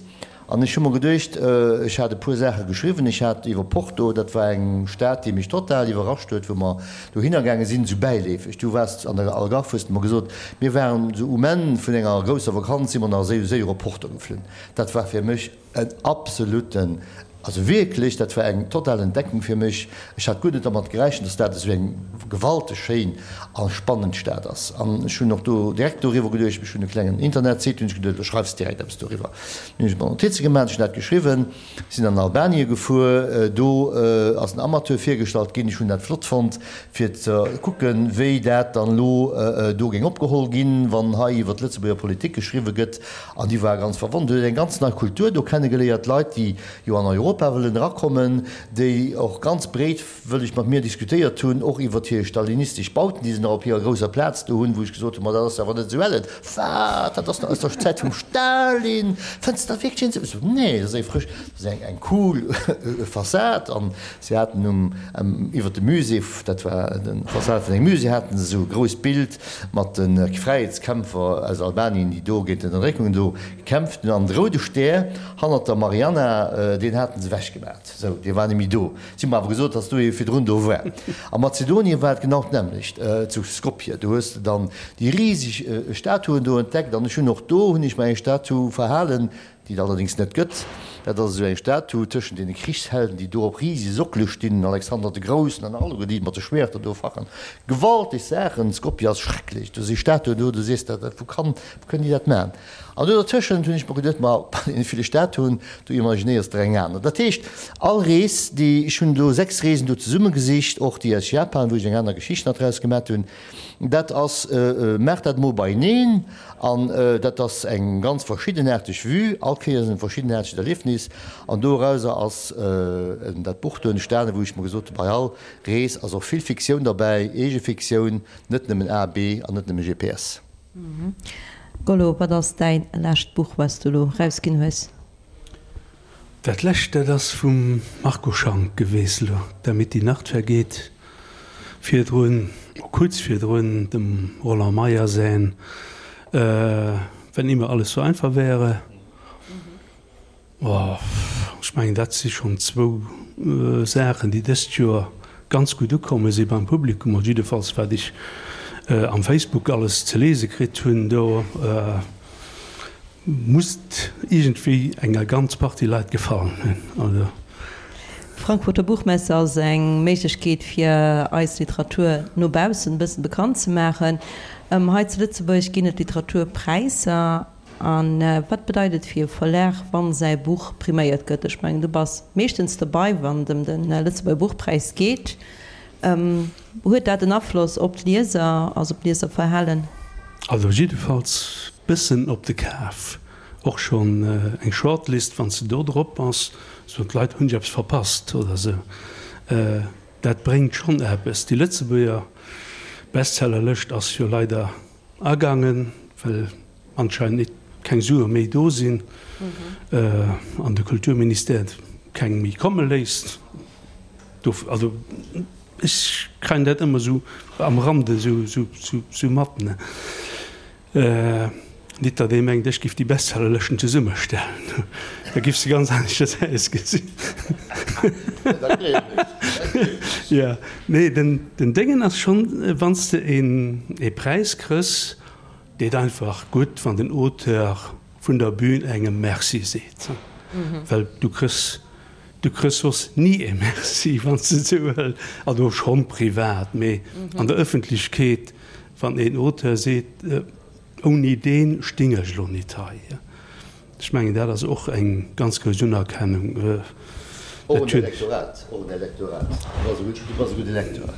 An ech hu mer geduecht, ech hat e puer Saache geschriwwen. Ech hat iwwer Porto, dat war eng Stad, déi mech total iwwerrascht huet, wou mer dohinner gaange sinn, esou bäileefeg. Du waars an der Algarve, hues de mer gesot. Mir waren esou um Enn vun enger grousser Vakanz, si mer nach esou séier op Porto geflunn. Dat war fir mech en absoluten, also wierklech, dat war eng total Entdeckung fir mech. Ech hat guer net dermat gerechent, dass dat esou eng gewalteg schéin a spannend Stad ass. An ech hunn och do direkt doriwwer geduecht, ech hunn e klengen Internetsite, hunn ech geduecht, elo schreifs de direkt eppes doriwwer. Hunn ech mer Notize gemaach, ech hunn dat geschriwwen, sinn an Albanien gefuer, do ass en Amateur virgestallt ginn, ech hunn dat flott fonnt fir ze kucken, wéi dat dann elo do géing opgeholl ginn, wann hei iwwer d'Lëtzebuerger Politik geschriwwe gëtt. An déi ware ganz verwonnert, huet eng ganz nei Kultur do kennegeléiert, Leit, déi jo an Europa wëllen erakommen, déi och ganz breet wëlleg mat mir diskutéiert hunn, och iwwert hir stalinistesch Bauten, déi se nach op hirer grousser Plaz do hunn, wou ech gesot hunn, ma dat ass awer net esou ellen. Wat? Dat ass nach aus der Zäit vum Stalin? Fënns de dat wierklech een esou? Ech sot, Nee, dat ass eng frësch, dat ass eng, eng cool Fassad. An se haten um, iwwert dem Musée, dat war de Fassad vun engem Musée, haten se esou e grousst Bild mat de Fräiheetskämpfer aus Albanien, déi do géint d'Ënnerdréckung do gekämpft hunn. An de roude Stär hannert der Marianna, deen haten se ewechgemat. Sou, dee war net méi do. Si hu mer awer gesot, dass do ee virdrun do war. A Mazedonien war et genau d'nämmlecht, zu Skopje. Do hues de dann déi riseg Statuen do entdeckt. An ech hunn och do hunn ech mer eng Statu verhalen, déi et allerdéngs net gëtt. Dat ass esou eng Statu tëschent deene Krichshelden, déi do op risege Sockele stinn, den Alexander de Groussen an alleguer déi mat de Schwäerter do fachen. Gewalteg Saachen. Skopje ass schrecklech. Do si Statuen do, du sees der, wou kann, wou kënnen déi dat maachen? An do dertëschent hunn ech mer geduet, ma bei deene ville Statuen, do imaginéiers der eng aner. Dat heescht, all Rees, déi, ech hunn do 6 Reesen do zesummegesicht, och déi aus Japan, wou ech eng aner Geschicht nach draus gemat hunn, dat ass, maach dat emol beieneen an dat ass eng ganz verschiddenaarteg Vue, all Kéiers en verschiddenaartegt Erliefnis an dorauser ass dat Buch do entstanen, wou ech mer gesot hunn, bei all Rees ass och vill Fiktioun derbäi, eege Fiktioun, net nëmmen A, B an net nëmme GPS. Gollo, wat ass däin lescht Buch, wat s du elo rausginn hues? Dat lescht, dat ass vum Marco Schank geweest elo, Damit die Nacht vergeht. Virdrun, kuerz virdrun, dem Roland Meyer säin Wenn immer alles so einfach wäre. Oh, ech mengen, dat si schonn zwou Saachen, déi dëst Joer ganz gutt ukomme si beim Publikum, oder jiddefalls wat ech am Facebook alles ze lese kritt hunn. Do muss et iergendwéi enger ganz Partie Leit gefallen hunn. Also. D'Frankfurter Buchmesse ass eng Méiglechkeet fir eis Literatur no baussen e bëssen bekannt ze maachen. Hei zu Lëtzebuerg ginn et Literaturpräisser. A wat bedeit et fir e Verlag, wann säi Buch priméiert gëtt? Ech mengen, du bass meeschtens dobei, wann et ëm de Lëtzebuerger Buchpräis geet. Huet dat en Afloss op d'Lieser, also op d'Lieserverhalen? Also jiddefalls bëssen op de Kaf. Och schonn eng Shortlist, wann s de do drop bass, soen d'Leit, hunn ech eppes verpasst oder sou. Dat bréngt schonn eppes. Déi Lëtzebuerger Bestsellerlëscht ass jo leider agaangen, well anscheinend nit keng Sue méi do sinn an de Kulturministère keng méi komme léisst. Do, also ech kréien dat ëmmer esou am Rande esou mat, ne. Nit datt ee mengt, ech giff déi Bestsellerlëschten zesummestellen, da giff se ganz aneschters ausgesinn. Jo, nee, den Déngen ass schonn, wann s de ee Präis krëss, Deet einfach gutt, wann den Auteur vun der Bühn engem Merci seet, well du krëss, du krëss soss ni e Merci, wann s de et esou wëlls, also schonn privat, mee an der Ëffentlechkeet, wann een Auteur seet, ouni deen sting ech elo nit hei. Ech mengen, dat ass och eng ganz grouss Unerkennung. Och en Elektorat, och en Elektorat. Du bass e gudde Lektor.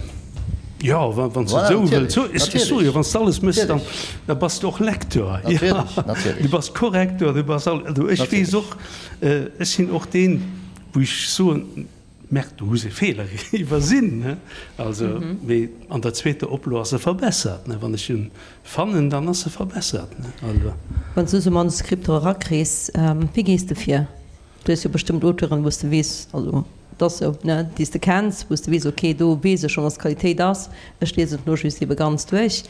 Jo, wann s de et esou wëlls. Ech soe jo, wann s de alles méchs, dann da bass de och Lektor. Natierlech, natierlech. Du bass Korrektor, du bass all. Also ech weess och, ech sinn och deen, wou ech soen. Merde, du hues e Feeler iwwersinn, ne? Also, mee an der zweeter Oplo ass e verbessert, ne? Wann ech en fannen, dann ass e verbessert, ne? Also. Wann s du esou Manuskripter erakriss, wéi gees de vir? Du hues jo bestëmmt Auteuren, wou s de weess, also et ass esou, ne, déi s de kenns, wou s de weess, ok, do weess ech schonn, dass d'Qualitéit ass, ech liesen et elo just ebe ganz duerch,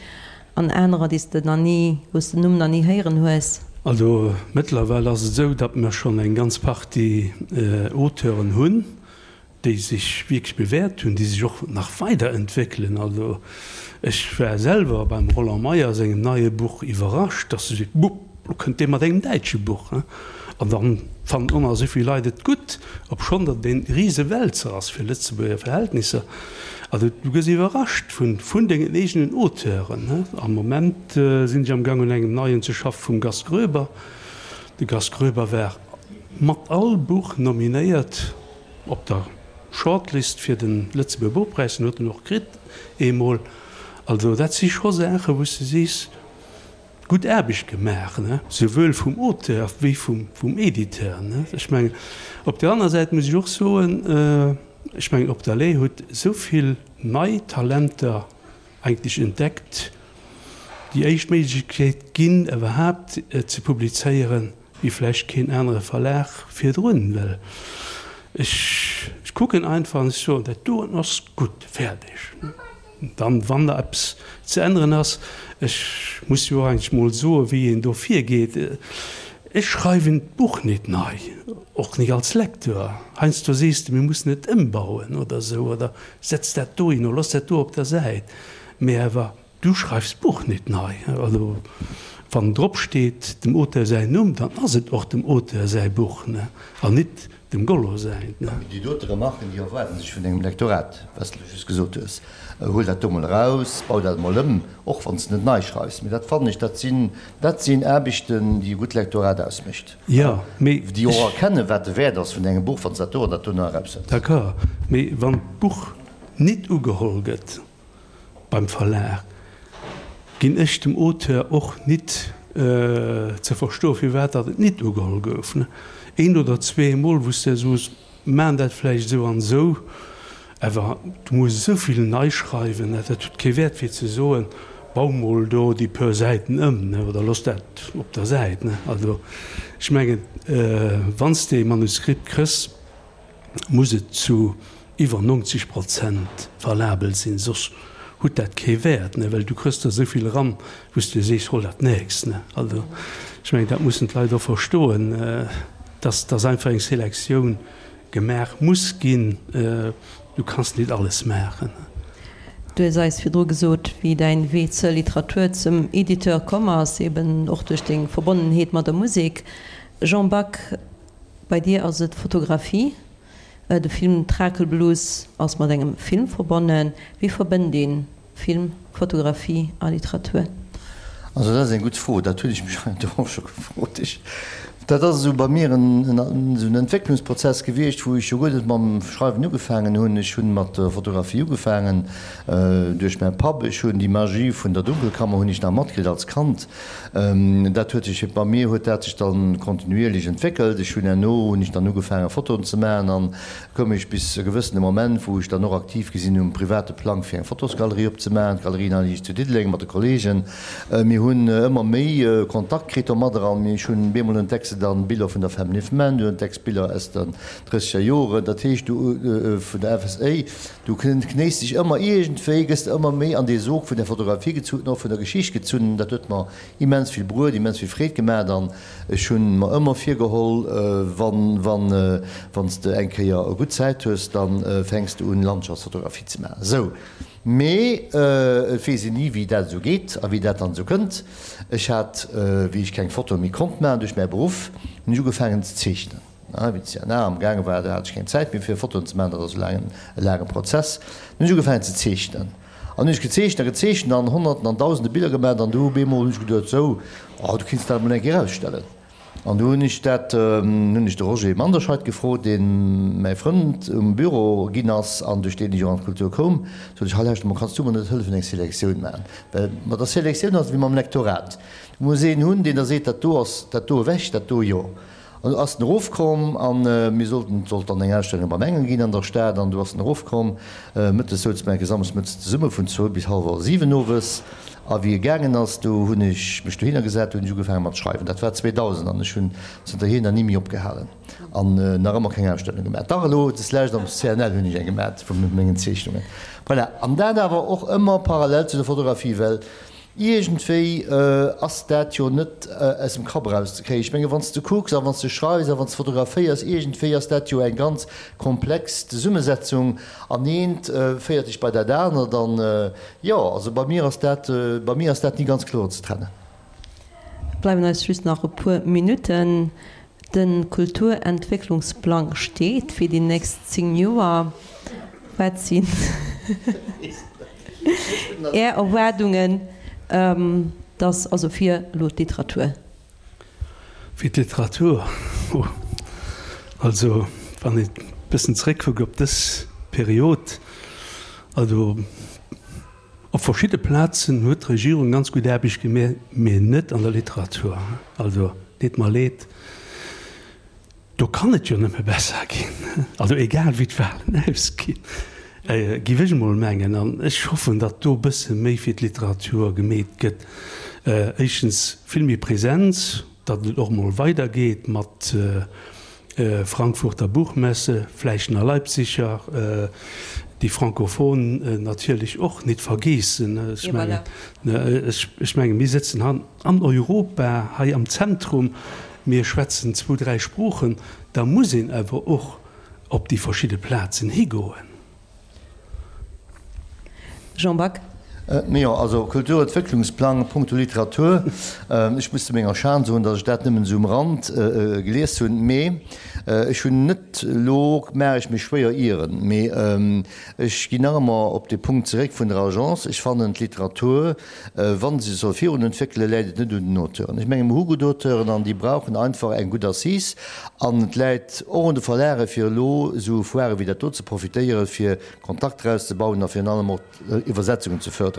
an anerer, déi s de nach ni, wou s de den Numm nach ni héieren hues. Also mëttlerweil ass et esou, datt mer schonn eng ganz Partie Auteuren hunn, déi sech wierklech bewäert hunn, déi sech och nach weiderentwéckelen. Also ech war selwer beim Roland Meyer sengem neie Buch iwwerrascht, datt e seet, Bupp, lo kënnt dee mat engem däitsche Buch. An da fannen och nach esou vill Leit et gutt, obschonn datt et e Risewälzer ass fir Lëtzebuerger Verhältnisser. Also du gëss iwwerrascht vun dengen eegenen Auteuren. Am Moment sinn ech am Gang un engem neien ze schaffe vum Gast Groeber. De Gast Groeber war mat all Buch nominéiert op der Shortlist fir de Lëtzebuerger Buchpräis, den huet en och kritt eemol. Also dat si scho Saachen, wou s de sees, Gutt Aarbecht gemaach, ne, souwuel vum Auteur wéi vum Editeur, ne. Ech mengen, op där aner Säit muss ech och soen, ech mengen, Op der Lay huet esou vill nei Talenter eigentlech entdeckt, déi éischt Méiglechkeet ginn, iwwerhaapt ze publizéieren, wéi vläicht keen anere Verlag virdrun, well ech kucken einfach an ech soen, dat doen ass gutt, fäerdeg. Dann, wann da eppes ze änneren ass, ech muss jo och eigentlech mol soen, wéi een do virgeet, ech schreiwen d'Buch nit nei, och nit als Lecteur. Heiansdo sees de, mir mussen et ëmbauen oder esou, oder setz dat dohin oder looss dat do op der Säit, mee awer du schreifs d'Buch nit nei. Also wann drop steet dem Auteur säin Numm, dann ass et och dem Auteur säi Buch, an nit Dem Gollo säin. Mee déi dote Remarken, déi erwaarden sech vun engem Lektorat, wat s de just gesot hues. Huel dat do mol eraus, bau dat emol ëm, och wann s de net nei schreifs. Mee dat fannen ech, dat sinn, dat sinn Aarbechten, déi e gutt Lektorat ausmécht. Jo, mee Déi och erkennen, wat de Wäert ass vun engem Buch, wann s dat do an dat do nach eraushëls. D'accord, mee wann d'Buch nit ugeholl gëtt, Beim Verlag ginn ech dem Auteur och nit ze verstoen, firwat datt et nit ugeholl gouf. Een oder zweemol, wou s de soos, maan dat vläicht esou an esou, awer du muss esou vill nei schreiwen, dat huet kee Wäert fir ze soen, bau mol do déi puer Säiten ëm, oder looss dat op der Säit. Also ech mengen, wann s de e Manuskript kriss, muss et zu iwwer 90 Prozent valabel sinn, soss hutt dat kee Wäert, ne, well du kriss der esou vill eran, wou s de sees, hol dat nächst, ne. Also ech mengen, dat mussen d'Leit och verstoen, dass dass einfach eng Selektioun gemaach muss ginn. Du kanns nit alles maachen. Du hues eis virdru gesot, wéi däin Wee zur Literatur, zum Editeur komm ass, eben och duerch deng Verbonnenheet mat der Musek. Jean Back, Bei dir ass et d'Fotografie. De Film Trakelblues ass mat engem Film verbonnen. Wéi verbënnt ee Film, Fotografie a Literatur? Also dat ass eng gutt Fro, dat hunn ech mech heiansdo och scho gefrot. Ech, dat ass esou bei mir en esou en Entwécklungsprozess gewiescht, wou ech jo guer net mam Schreiwen ugefaangen hunn. Ech hunn mat der Fotografie ugefaangen duerch mäi Papp. Ech hunn déi Magie vun der Dunkelkammer hunn ech nach matkritt als Kand. Dat huet sech, bei mir huet dat sech dann kontinuierlech entwéckelt. Ech hunn herno hunn ech dann ugefaange Fotoen ze maachen an koum ech bis e gewëssene Moment, wou ech dann och aktiv gi sinn um private Plang fir eng Fotosgalerie opzemaachen, d'Galerie Nalliich zu Diddeleng mat de Kollegen. Mir hunn ëmmer méi Kontakt kritt domadder an ech hunn bemol entdecks de dann Biller vun der Family of Man, du entdecks Biller aus den drësseger Joren, dat heescht du vun der FSA. Du knéis dech ëmmer iergendwéi, gëss de ëmmer méi an dee Sog vun der Fotografie gezunn, och vun der Geschicht gezunn. Dat huet mer immens vill bruet, immens vill Freed gemaacht an ech hunn mer ëmmer virgeholl, wann, wann, wann s de eng Kéier gutt Zäit hues, da fänks de un Landschaftsfotografie ze maachen. Sou, mee et weess een ni wéi dat esou geet a wéi dat dann esou kënnt. Ech hat, wéi ech keng Fotoe méi konnt maachen duerch mäi Beruff, hunn ech ugefaangen ze zeechnen. Wéi de CNA am gaange war, do hat ech keng Zäit méi fir Fotoen ze maachen, dat ass e laangen, e laange Prozess. Dunn hunn ech ugefaangen ze zeechnen. An hunn ech gezeechent a gezeechent an Honnerten an Dausende Biller gemaach an du op eemol hunn ech geduet, sou, oh, du kinns dat emol eng Kéier ausstellen. An du hunn ech dat, hunn ech de Roger Manderscheid gefrot, dee mäi Frënd um Büro ginn ass an duerch deen ech och an d'Kultur koum, sot ech, hei lauschter mol, kanns du mer net hëllefen eng Selektioun maachen? Well mat der Selektioun ass et wéi mam Lektorat, du muss een hunn, deen da seet, dat do ass, dat do ewech, dat do jo. An du ass en erofkomm an mir sollten, et sollt dann eng Ausstellung beim Engel ginn an der Stad an du ass en erofkomm. Mëttes souze mer enke samschdes mëttes zesumme vun zwou bis hallwer 7 owes. A wéi e gaangen ass, do hunn ech mech dohinner gesat, do hunn ech ugefaange mat schreiwen. Dat war 2000 an ech hunn zënterhier nach ni méi opgehalen an nach ëmmer keng Ausstellung gemaach. Dach elo deslescht am CNL hunn ech eng gemaat vu mengen Zeechnungen. Voilà. An dat awer och ëmmer parallel zu der Fotografie, well Iergendwéi ass dat jo net aus dem Kapp erauszekréien. Ech menge wann s de kucks a wann s de schreifs a wann s de fotograféiers, iergendwéi ass dat jo eng ganz komplex Zesummesetzung an eent féiert dech bei dat anert an jo, also bei mir ass dat, bei mir ass dat ni ganz kloer ze trennen. Et bleiwen eis just nach e puer Minutten. De Kulturentwécklungsplang steet fir déi nächst 10 Joer. Wat sinn Är Erwaardungen, dass, also fir elo d'Literatur? Fir d'Literatur? Oh, also wann een e bëssen zeréckkuckt op dës Period, also op verschidde Plazen huet d'Regierung ganz gutt Aarbecht gemaach, mee net an der Literatur. Also deet mer leed. Do kann et jo nëmme besser ginn, also egal wéi d'Wahlen ausginn, géif ech emol mengen. An ech hoffen, datt do e bësse méi fir d'Literatur gemeet gëtt. Éischtens vill méi Präsenz, datt et och emol weidergeet mat Frankfurter Buchmesse, vläicht nach Leipziger, déi Francophone natierlech och nit vergeessen. Ech mengen, ech mengen, mir sëtzen an Europa, hei am Zentrum. Mir schwätzen zwou, dräi Sproochen, da muss een awer och op déi verschidde Plazen higoen. Jean Back. Jo, also Kulturentwécklungsplang punkto Literatur, ech muss zu menger Schan soen, datt ech dat nëmmen esou um Rand gelies hunn, mee ech hunn net, elo maache ech mech schwéier ieren, mee ech ginn nach ëmmer op dee Punkt zeréck vun der Agence, ech fannen d'Literatur, Wa se sech soll virun entwéckelen, läit et net un den Auteuren. Ech menge mer hu gutt Auteuren an déi brauchen einfach eng gutt Assise. An et läit och un de Verlage fir elo esou Foirë wéi dat do ze profitéieren, fir Kontakter auszebauen a virun allem och Iwwersetzungen ze förderen.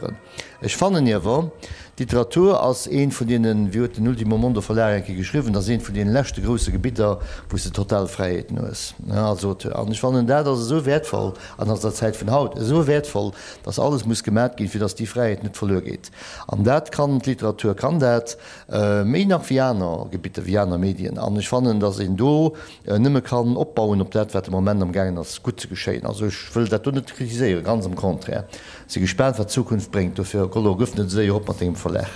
Ech fannen iewer, d'Literatur ass eent vun deenen, wéi huet den Ultimo Mondo Verlag eng Kéier geschriwwen, ass eent vun deene leschte grousse Gebidder, wou s de total Fräiheeten hues als Auteur. An ech fannen, dat ass esou wäertvoll an ass der Zäit vun haut esou wäertvoll, dass alles muss gemat ginn, fir dass déi Fräiheet net verluer geet. An dat kann d'Literatur, kann dat méi nach wéi aner Gebitter, wéi aner Medien. An ech fannen, dass een do nëmme kann opbauen op dat, wat de Moment amgaangen ass gutt ze geschéien. Also ech wëll dat do net kritiséieren, ganz am Contraire. Si gespaant, wat d'Zukunft bréngt. Dofir, Gollo, gëff net esou séier op mat dengem Verlag.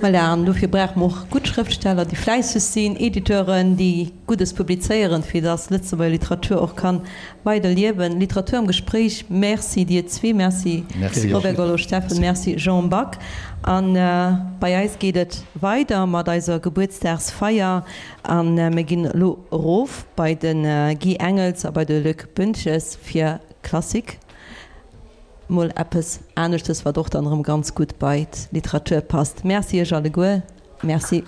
Voilà, an dofir brauche mer och gutt Schrëftsteller, déi fläisseg sinn, Editeuren, déi Guddes publizéieren, fir dass Lëtzebuerger Literatur och kann Weider liewen. Literatur am Gespréich. Merci dir zwee. Merci Robert Gollo-Steffen, Merci Jean Back. A bei eis geet et weider mat eiser Gebuertsdagsfeier a mir ginn elo erof bei de Guy Engels a bei de Luc Boentges fir Klassik. Mol eppes aneschtes, wat och dann erëm ganz gutt bei d'Literatur passt. Merci iech alleguer. Merci.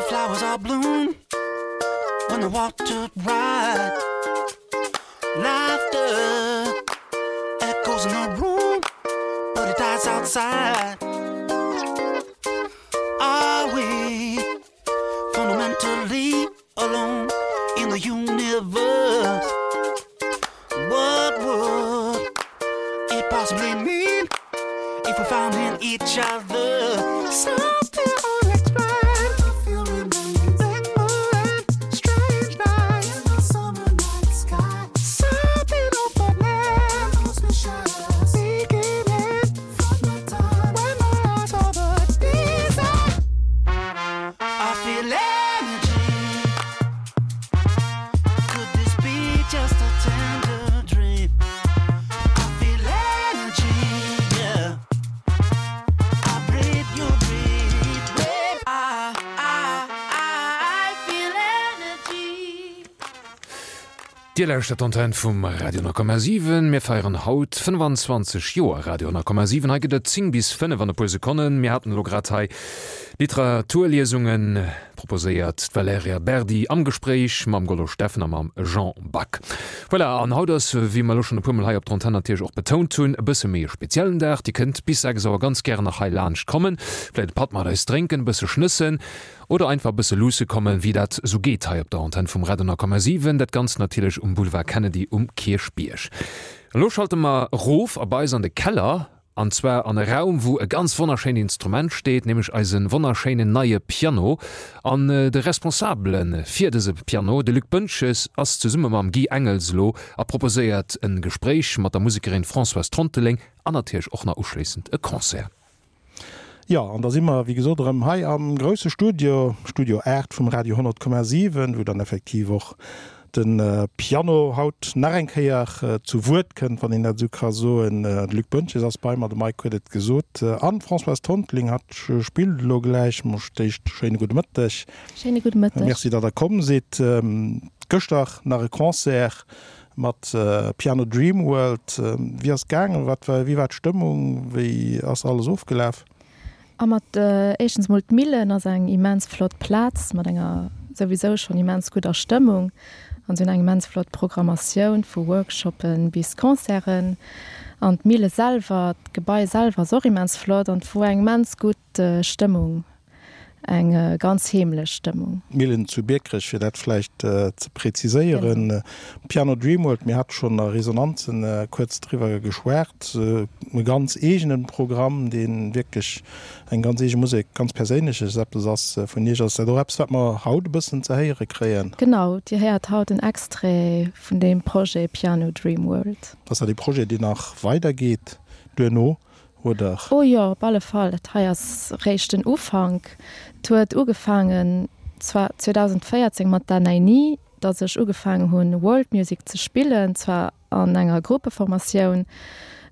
Flowers are bloom when the water right Laughter echoes in the room but it dies outside Are we fundamentally alone in the universe? What would it possibly mean if we found in each other something unexplained? Strange night in the summer night sky. Something opening, beginning from the time when my eyes saw the desire. I feel energy. Could this be just a tender dream? I feel energy, yeah. I breathe, you breathe, babe. I. Dir lauschtert d'Antenn vum Radio 10,7. Mir feieren haut 25 Joer Radio 10,7. Hei gëtt et 10 bis 5 an e puer Sekonnen. Mir haten elo grad hei Literaturliesunge proposéiert, d'Valerija Berdi am Gespréich mam Gollo Steffen a mam Jean Back. Voilà, an haut ass, wéi mer elo schonn e puermol hei op der Antenn natierlech och betount hunn, e bësse méi e speziellen Dag. Dir kënnt bis 6 Auer ganz gären nach hei laanscht kommen, vläicht e Patt mat eis drénken, e bësse schnëssen. Oder einfach e bësse luusse kommen, wéi dat sou geet hei op der Antenn vum Radio 10,7. Dat Ganzt natierlech um Boulevard Kennedy um Kierchbierg. Elo schalte mer erof a bei eis an de Keller, an zwar an e Raum, wou e ganz wonnerschéint Instrument steet, nämlech eise wonnerschéinen neie Piano. An de Responsabele fir dëse Piano, de Luc Boentges, ass zesumme mam Guy Engels elo a proposéiert e Gespréich mat der Musekerin Françoise Tronteleng an natierlech och nach uschléissend e Concert. Jo, an da si mer, wéi gesot, erëm hei am grousse Studio, Studio 8 vum Radio 100,7, wou dann effektiv och de Piano haut nach eng Kéier zu Wuert kënnt, wann een dat esou ka soen. De Luc Boentges ass bei mer, de Mike huet et gesot, an d'Françoise Tonteling, hatt spillt elo gläich. Mol d'éischt schéine gudde Mëtteg. Schéine gudde Mëtteg. Merci, datt Der komm sidd. Gëschter nach e Concert Mat Piano Dream World, wéi ass et gaangen? Wat war, wéi war d'Stëmmung? Wéi ass alles ofgelaf? A mat éischtens mol d'Millen ass eng immens flott Plaz mat enger souwisou schonn immens gudder Stëmmung an se hunn eng immens flott Programmatioun vu Workshoppen bis Concerten an d'Mille selwer, d'Gebai selwer ass och immens flott an et wor eng immens gutt Stëmmung. Eng ganz heemlech Stëmmung. D'Millen zu Biekerech, fir dat vläicht ze preziséieren. Piano Dreamworld, mir hate schonn a Resonanzen kuerz driwwer geschwat, e ganz eegene Programm, dee wierklech eng ganz eege Musek, ganz Perséinleches eppes ass vun Iech. Ass dat och eppes, wat mer haut e bëssen ze héiere kréien? Genau, Dir héiert haut en Extrait vun deem Projet Piano Dreamworld. Ass dat ee Projet, deen nach weidergeet duerno? Oder? Oh jo, op alle Fall. Dat hei ass réischt den Ufank. Et huet ugefaangen zwar 2014 mat der Naini, datt ech ugefaangen hunn World Music ze spillen, zwar an enger Gruppeformatioun,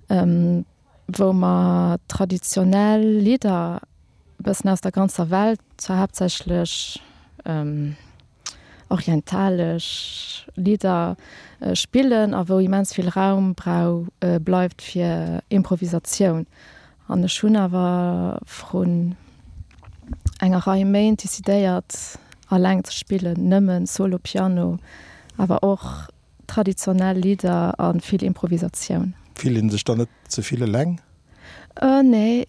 wou mer traditionell Lidder e bëssen aus der ganzer Welt, zwar haaptsächlech orientalesch Lidder spillen a wou immens vill Raum brau bleift fir Improvisatioun. An ech hunn awer vrun enger Rei Méint decidéiert alleng ze spillen, nëmmen Solo Piano, awer och traditionell Lidder a vill Improvisatioun. Fillt een sech dann net ze vill eleng? Nee,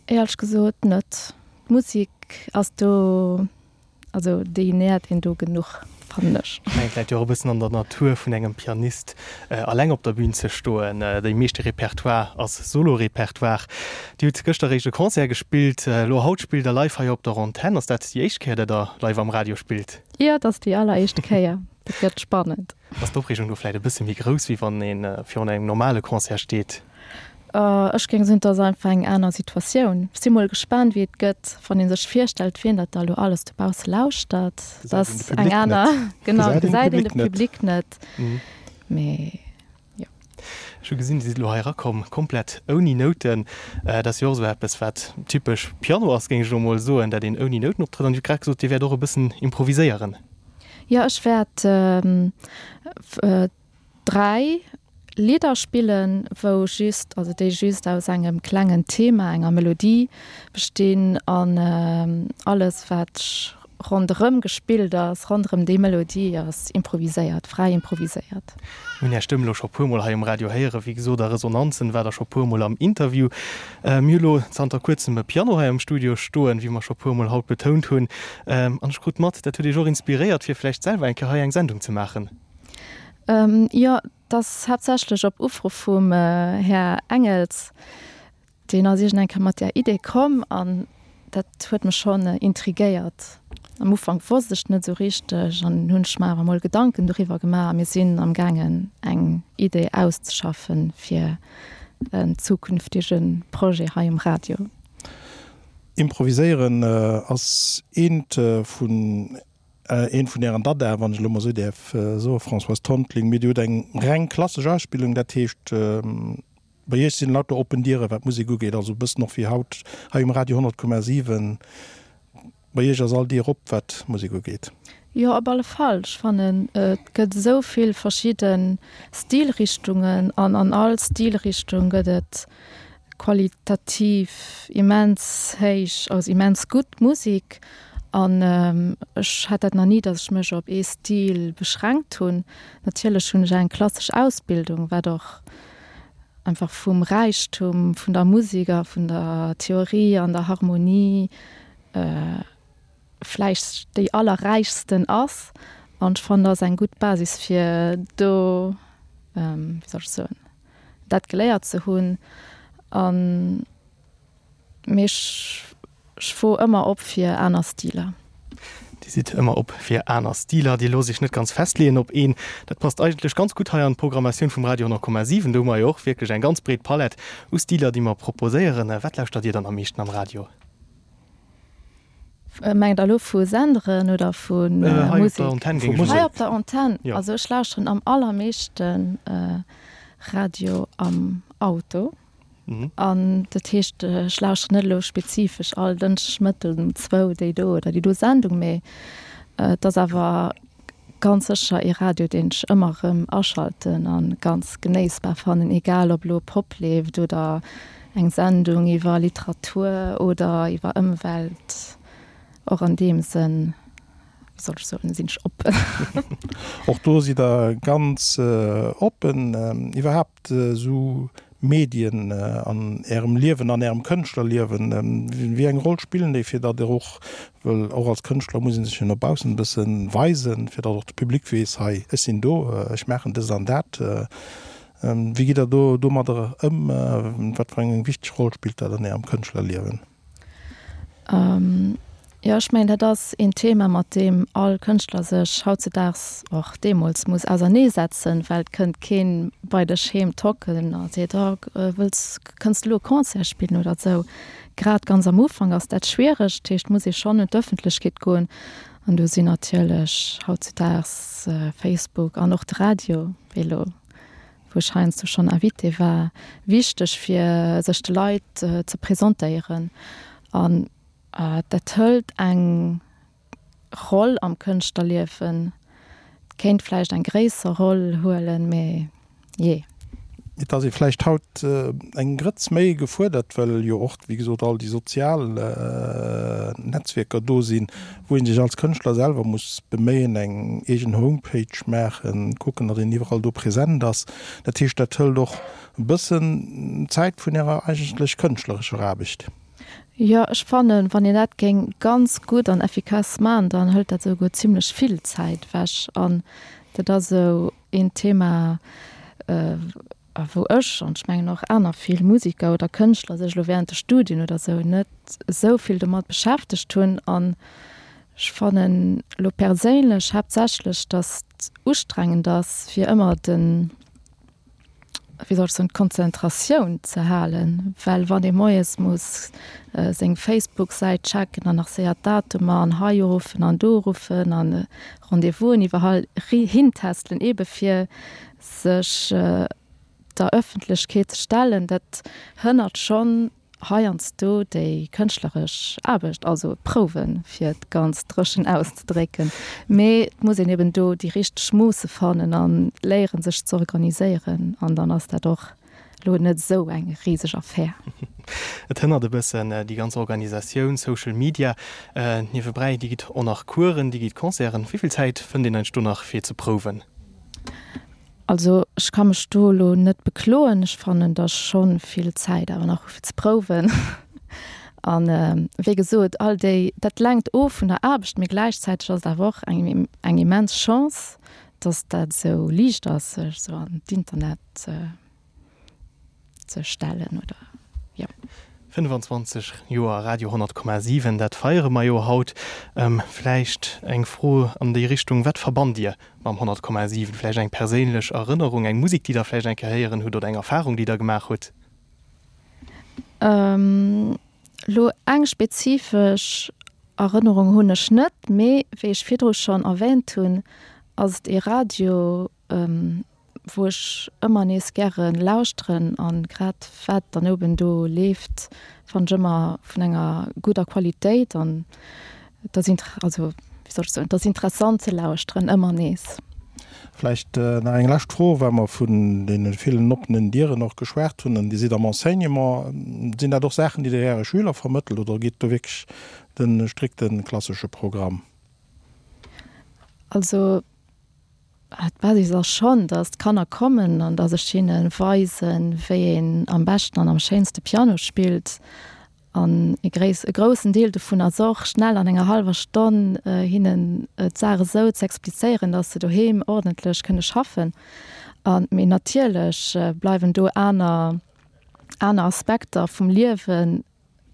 éierlech gesot net. D'Musek ass do Also déi nährt een do genuch, fannen ech. Ech mengen, et läit jo och e bëssen an der Natur vun engem Pianist, alleng op der Bühn ze stoen. Dee meeschte Repertoire ass Solo-Repertoire. Dir hutt gëschter eréischt e Concert gespillt, elo haut spillt der live hei op der Antenn. Ass dat déi éischt Kéier, dat der live am Radio spillt? Jo, et ass déi alleréischt Kéier. Dat gëtt spannend. Ass d'Opreegung do vläicht e bësse méi grouss, wéi wann ee virun engem normale Concert steet? Ech géing soen, et ass einfach eng aner Situatioun. Ech si mol gespaant, wéi et gëtt, wann ee sech virstellt, wien dat da elo alles dobausse lauschtert. Dat ass eng aner, genau, gesäit een de Public net. Mee jo. Ech hu gesinn, Dir sidd elo hei erakomm, komplett ouni Nouten. Dat ass jo och esou eppes, wat typesch Piano ass, géing ech elo mol soen, dat een ouni Nouten optrëtt. An Dir hutt grad gesot, Dir wäert och e bëssen improviséieren. Jo, ech wäert 3 Lidder spillen, wou just, also déi just aus engem klengen Thema, enger Melodie bestinn an alles wat ronderëm gespillt ass, ronderëm déi Melodie ass improviséiert, fräi improviséiert. Mir hunn Är Stëmm elo scho puermol hei um Radio héieren, wéi gesot a Resonanzen war Der scho puermol am Interview. Mir hu lo zanter kuerzem e Piano hei am Studio stoen, wéi mer scho puermol haut betount hunn. An ech krut mat, dat huet Iech och inspiréiert, fir vläicht selwer eng Kéier hei eng Sendung ze maachen. Jo, et ass haaptsächlech op Ufro vum Här Engels. Deen ass iergend eng Kéier mat där Idee komm an dat huet mech schonn intrigéiert. Am Ufank wosst ech net esou richteg an hunn ech mer awer mol Gedanken doriwwer gemaach a mir sinn am gaangen eng Idee auszeschaffen fir en zukünftege Projet hei um Radio. Improviséieren ass eent vun Een vun Ären Dadaen, wann ech elo mol esou däerf soen, Françoise Tonteling, mee Dir hutt eng reng klassesch Ausbildung, dat heescht, bei Iech sinn lauter oppen Dieren, wat d'Musek ugeet, also e bëssen och wéi haut hei um Radio 100,7, bei Iech ass all Dier op, wat d'Musek ugeet. Jo, op alle Fall. Ech fannen, et gëtt esou vill verschidde Stilrichtungen an an all Stilrichtung gëtt et qualitativ immens héich, also immens gutt Musek. An ech hat dat nach ni, datt ech mech op ee Stil beschränkt hunn. Natierlech hunn ech eng klassesch Ausbildung, wat och einfach vum Räichtum vun der Musek a vun der Theorie an der Harmonie vläicht déi allerräichsten ass. An ech fannen, dat ass eng gutt Basis fir do, wéi soll ech soen, dat geléiert ze hunn. An, mee ech, ech wor ëmmer op fir aner Stiler. Dir sidd ëmmer op fir aner Stiler, Dir loosst Iech net ganz festleeën op een. Dat passt eigentlech ganz gutt hei an d'Programmatioun vum Radio 10,7. Do hu mer jo och wierklech eng ganz breet Palett u Stiler, déi mer proposéieren. Wat lauschtert Dir dann am meeschten am Radio? Mengt der elo vu Senderen oder vu Musek? Hei op der Antenn. Also ech lauschteren am allermeeschten Radio am Auto. An dat heescht, ech lauschteren net elo spezifesch all Dënschdeg Mëtten um zwou déi do oder déi do Sendung, mee et ass awer ganz sécher ee Radio, deen ech ëmmer erëm aschalten a ganz genéissbar fannen, egal ob elo Pop leeft oder eng Sendung iwwer Literatur oder iwwer Ëmwelt. Och an deem Sënn, wéi soll ech soen, sinn ech oppen. Och do sidd Der ganz oppen. Iwwerhaapt esou Medien an Ärem Liewen, an Ärem Kënschtlerliewen, wéi eng Roll spillen déi, fir datt Der och, well och als Kënschtler muss ee sech jo no baussen e bësse weisen, fir datt och de Public weess, hei, ech sinn do, ech maachen dëst an dat. Wéi gitt Der do domadder ëm? Wat fir eng wichteg Roll spillt dat an Ärem Kënschtlerliewen? Jo, ech mengen, dat ass een Thema, mat deem all Kënschtler sech hautzedaags, och deemools, muss auserneesetzen, well et kënnt keen bei dech heem tocken a seet, Oh, wëlls, kënns de elo e Concert spillen oder esou. Grad ganz am Ufank ass dat schwiereg, dat heescht, et muss ee schonn un d'Ëffentlechkeet goen an do sinn natierlech hautzedaags Facebook an och de Radio, wéi elo wou ech heiansdo schonn Invité war, wichteg fir sech de Leit ze presentéieren. An dat hëlt eng Roll am Kënschtlerliewen, kéint vläicht eng gréisser Roll huelen, mee jee. Et ass ee vläicht haut eng Grëtz méi gefuerdert, well jo och, wéi gesot, all déi sozial Netzwierker do sinn, wou ee sech als Kënschtler selwer muss beméien, eng eegen Homepage maachen, kucken, datt een iwwerall do present ass. Dat heescht, dat hëlt och e bëssen Zäit vun Ärer eigentlech kënschtlerescher Aarbecht. Jo, ech fannen, wann een dat géing ganz gutt an effikass man, dann hëlt dat esouguer zimlech vill Zäit ewech. An dat ass esou een Thema, wou ech, an ech mengen och aner vill Musiker oder Kënschtler, sech elo während de Studien oder esou net esou vill domat beschäftegt hunn. An ech fannen elo perséinlech haaptsächlech, datt et ustrengend ass, fir ëmmer den, wéi soll ech soen, d'Konzentratioun ze halen, well wann ee moies muss seng Facebook-Säit checken an nach séier d'Datumer an hei uruffen an do uruffen an Rendez-vousen iwwerall hintestelen, eebe fir sech der Ëffentlechkeet ze stellen, dat hënnert schonn heiansdo déi kënschtleresch Aarbecht, also Prouwen, fir et ganz dréchen auszedrécken. Mee et muss een eben do déi richteg Moosse fannen a léieren, sech ze organiséieren an dann ass dat och elo net esou eng riseg Affär. Et hënnert e bëssen déi ganz Organisatioun, Social Media niewebräi. Dir gitt och nach Coursen, Dir gitt Concerten. Wéi vill Zäit fënnt een eigentlech do nach fir ze prouwen? Also ech ka mech do elo net bekloen. Ech fannen, datt ech scho vill Zäit awer nach hu fir ze prouwen. An wéi gesot, all déi, dat lenkt of vun der Aarbecht, mee gläichzäiteg ass et awer och eng eng immens Chance, datt dat esou liicht ass, sech esou an d'Internet ze ze stellen oder jo. 25 Joer Radio 100,7, dat feiere mer jo haut. Vläicht eng Fro an déi Richtung, Wat verbannt Dir mam 100,7? Vläicht eng perséinlech Erënnerung, eng Musek, déi Der vläicht eng Kéier héieren hutt oder eng Erfarung, déi Der gemaach hutt? Elo eng spezifesch Erënnerung hunn ech net, mee wéi ech virdru schonn erwähnt hunn, ass et ee Radio, wou ech ëmmer nees gäre lauschteren an grad wat dann oben do leeft fannen ech ëmmer vun enger gudder Qualitéit an et ass inter also. wéi soll ech soen, et ass interessant ze lauschteren, ëmmer nees. Vläicht nach eng lescht Fro, well mer vun deene villen oppenen Dieren och geschwat hunn, an Dir sidd am Enseignement. Sinn dat och Saachen, déi Dir Äre Schüler vermëttelt oder gitt do wierklech de strikte klassesche Programm? Also d'Basis ass schonn, datt d'Kanner kommen an datt ech hinne weisen, wéi een am beschten an am schéinste Piano spillt. An e gréiss, e groussen Deel dovun ass och, schnell an enger hallwer Stonn hinnen d'Saach esou ze explizéieren, datt se doheem ordentlech kënne schaffen. A mee natierlech bleiwen do aner, aner Aspekter vum Liewe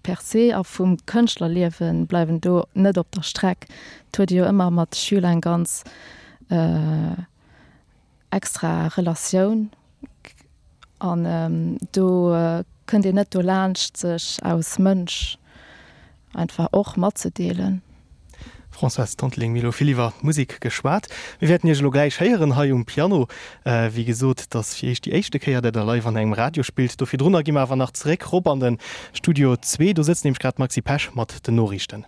per se a vum Kënschtlerliewe bleiwen do net op der Streck. Et huet ee jo ëmmer mat de Schüler eng ganz extra Relatioun an do kënnt een net dolaanscht sech aus Mënsch einfach och matzedeelen. Françoise Tonteling, Mir hu lo vill iwwer d'Musek geschwat. Mir wäerten Iech elo gläich héieren hei um Piano. Wéi gesot, et ass fir Iech déi éischte Kéier, dat Der live an engem Radio spillt. Do virdrunner gi mer awer nach zeréck rop an de Studio zwee. Do sëtzt nämlech grad d'Maxi Pesch mat den Noriichten.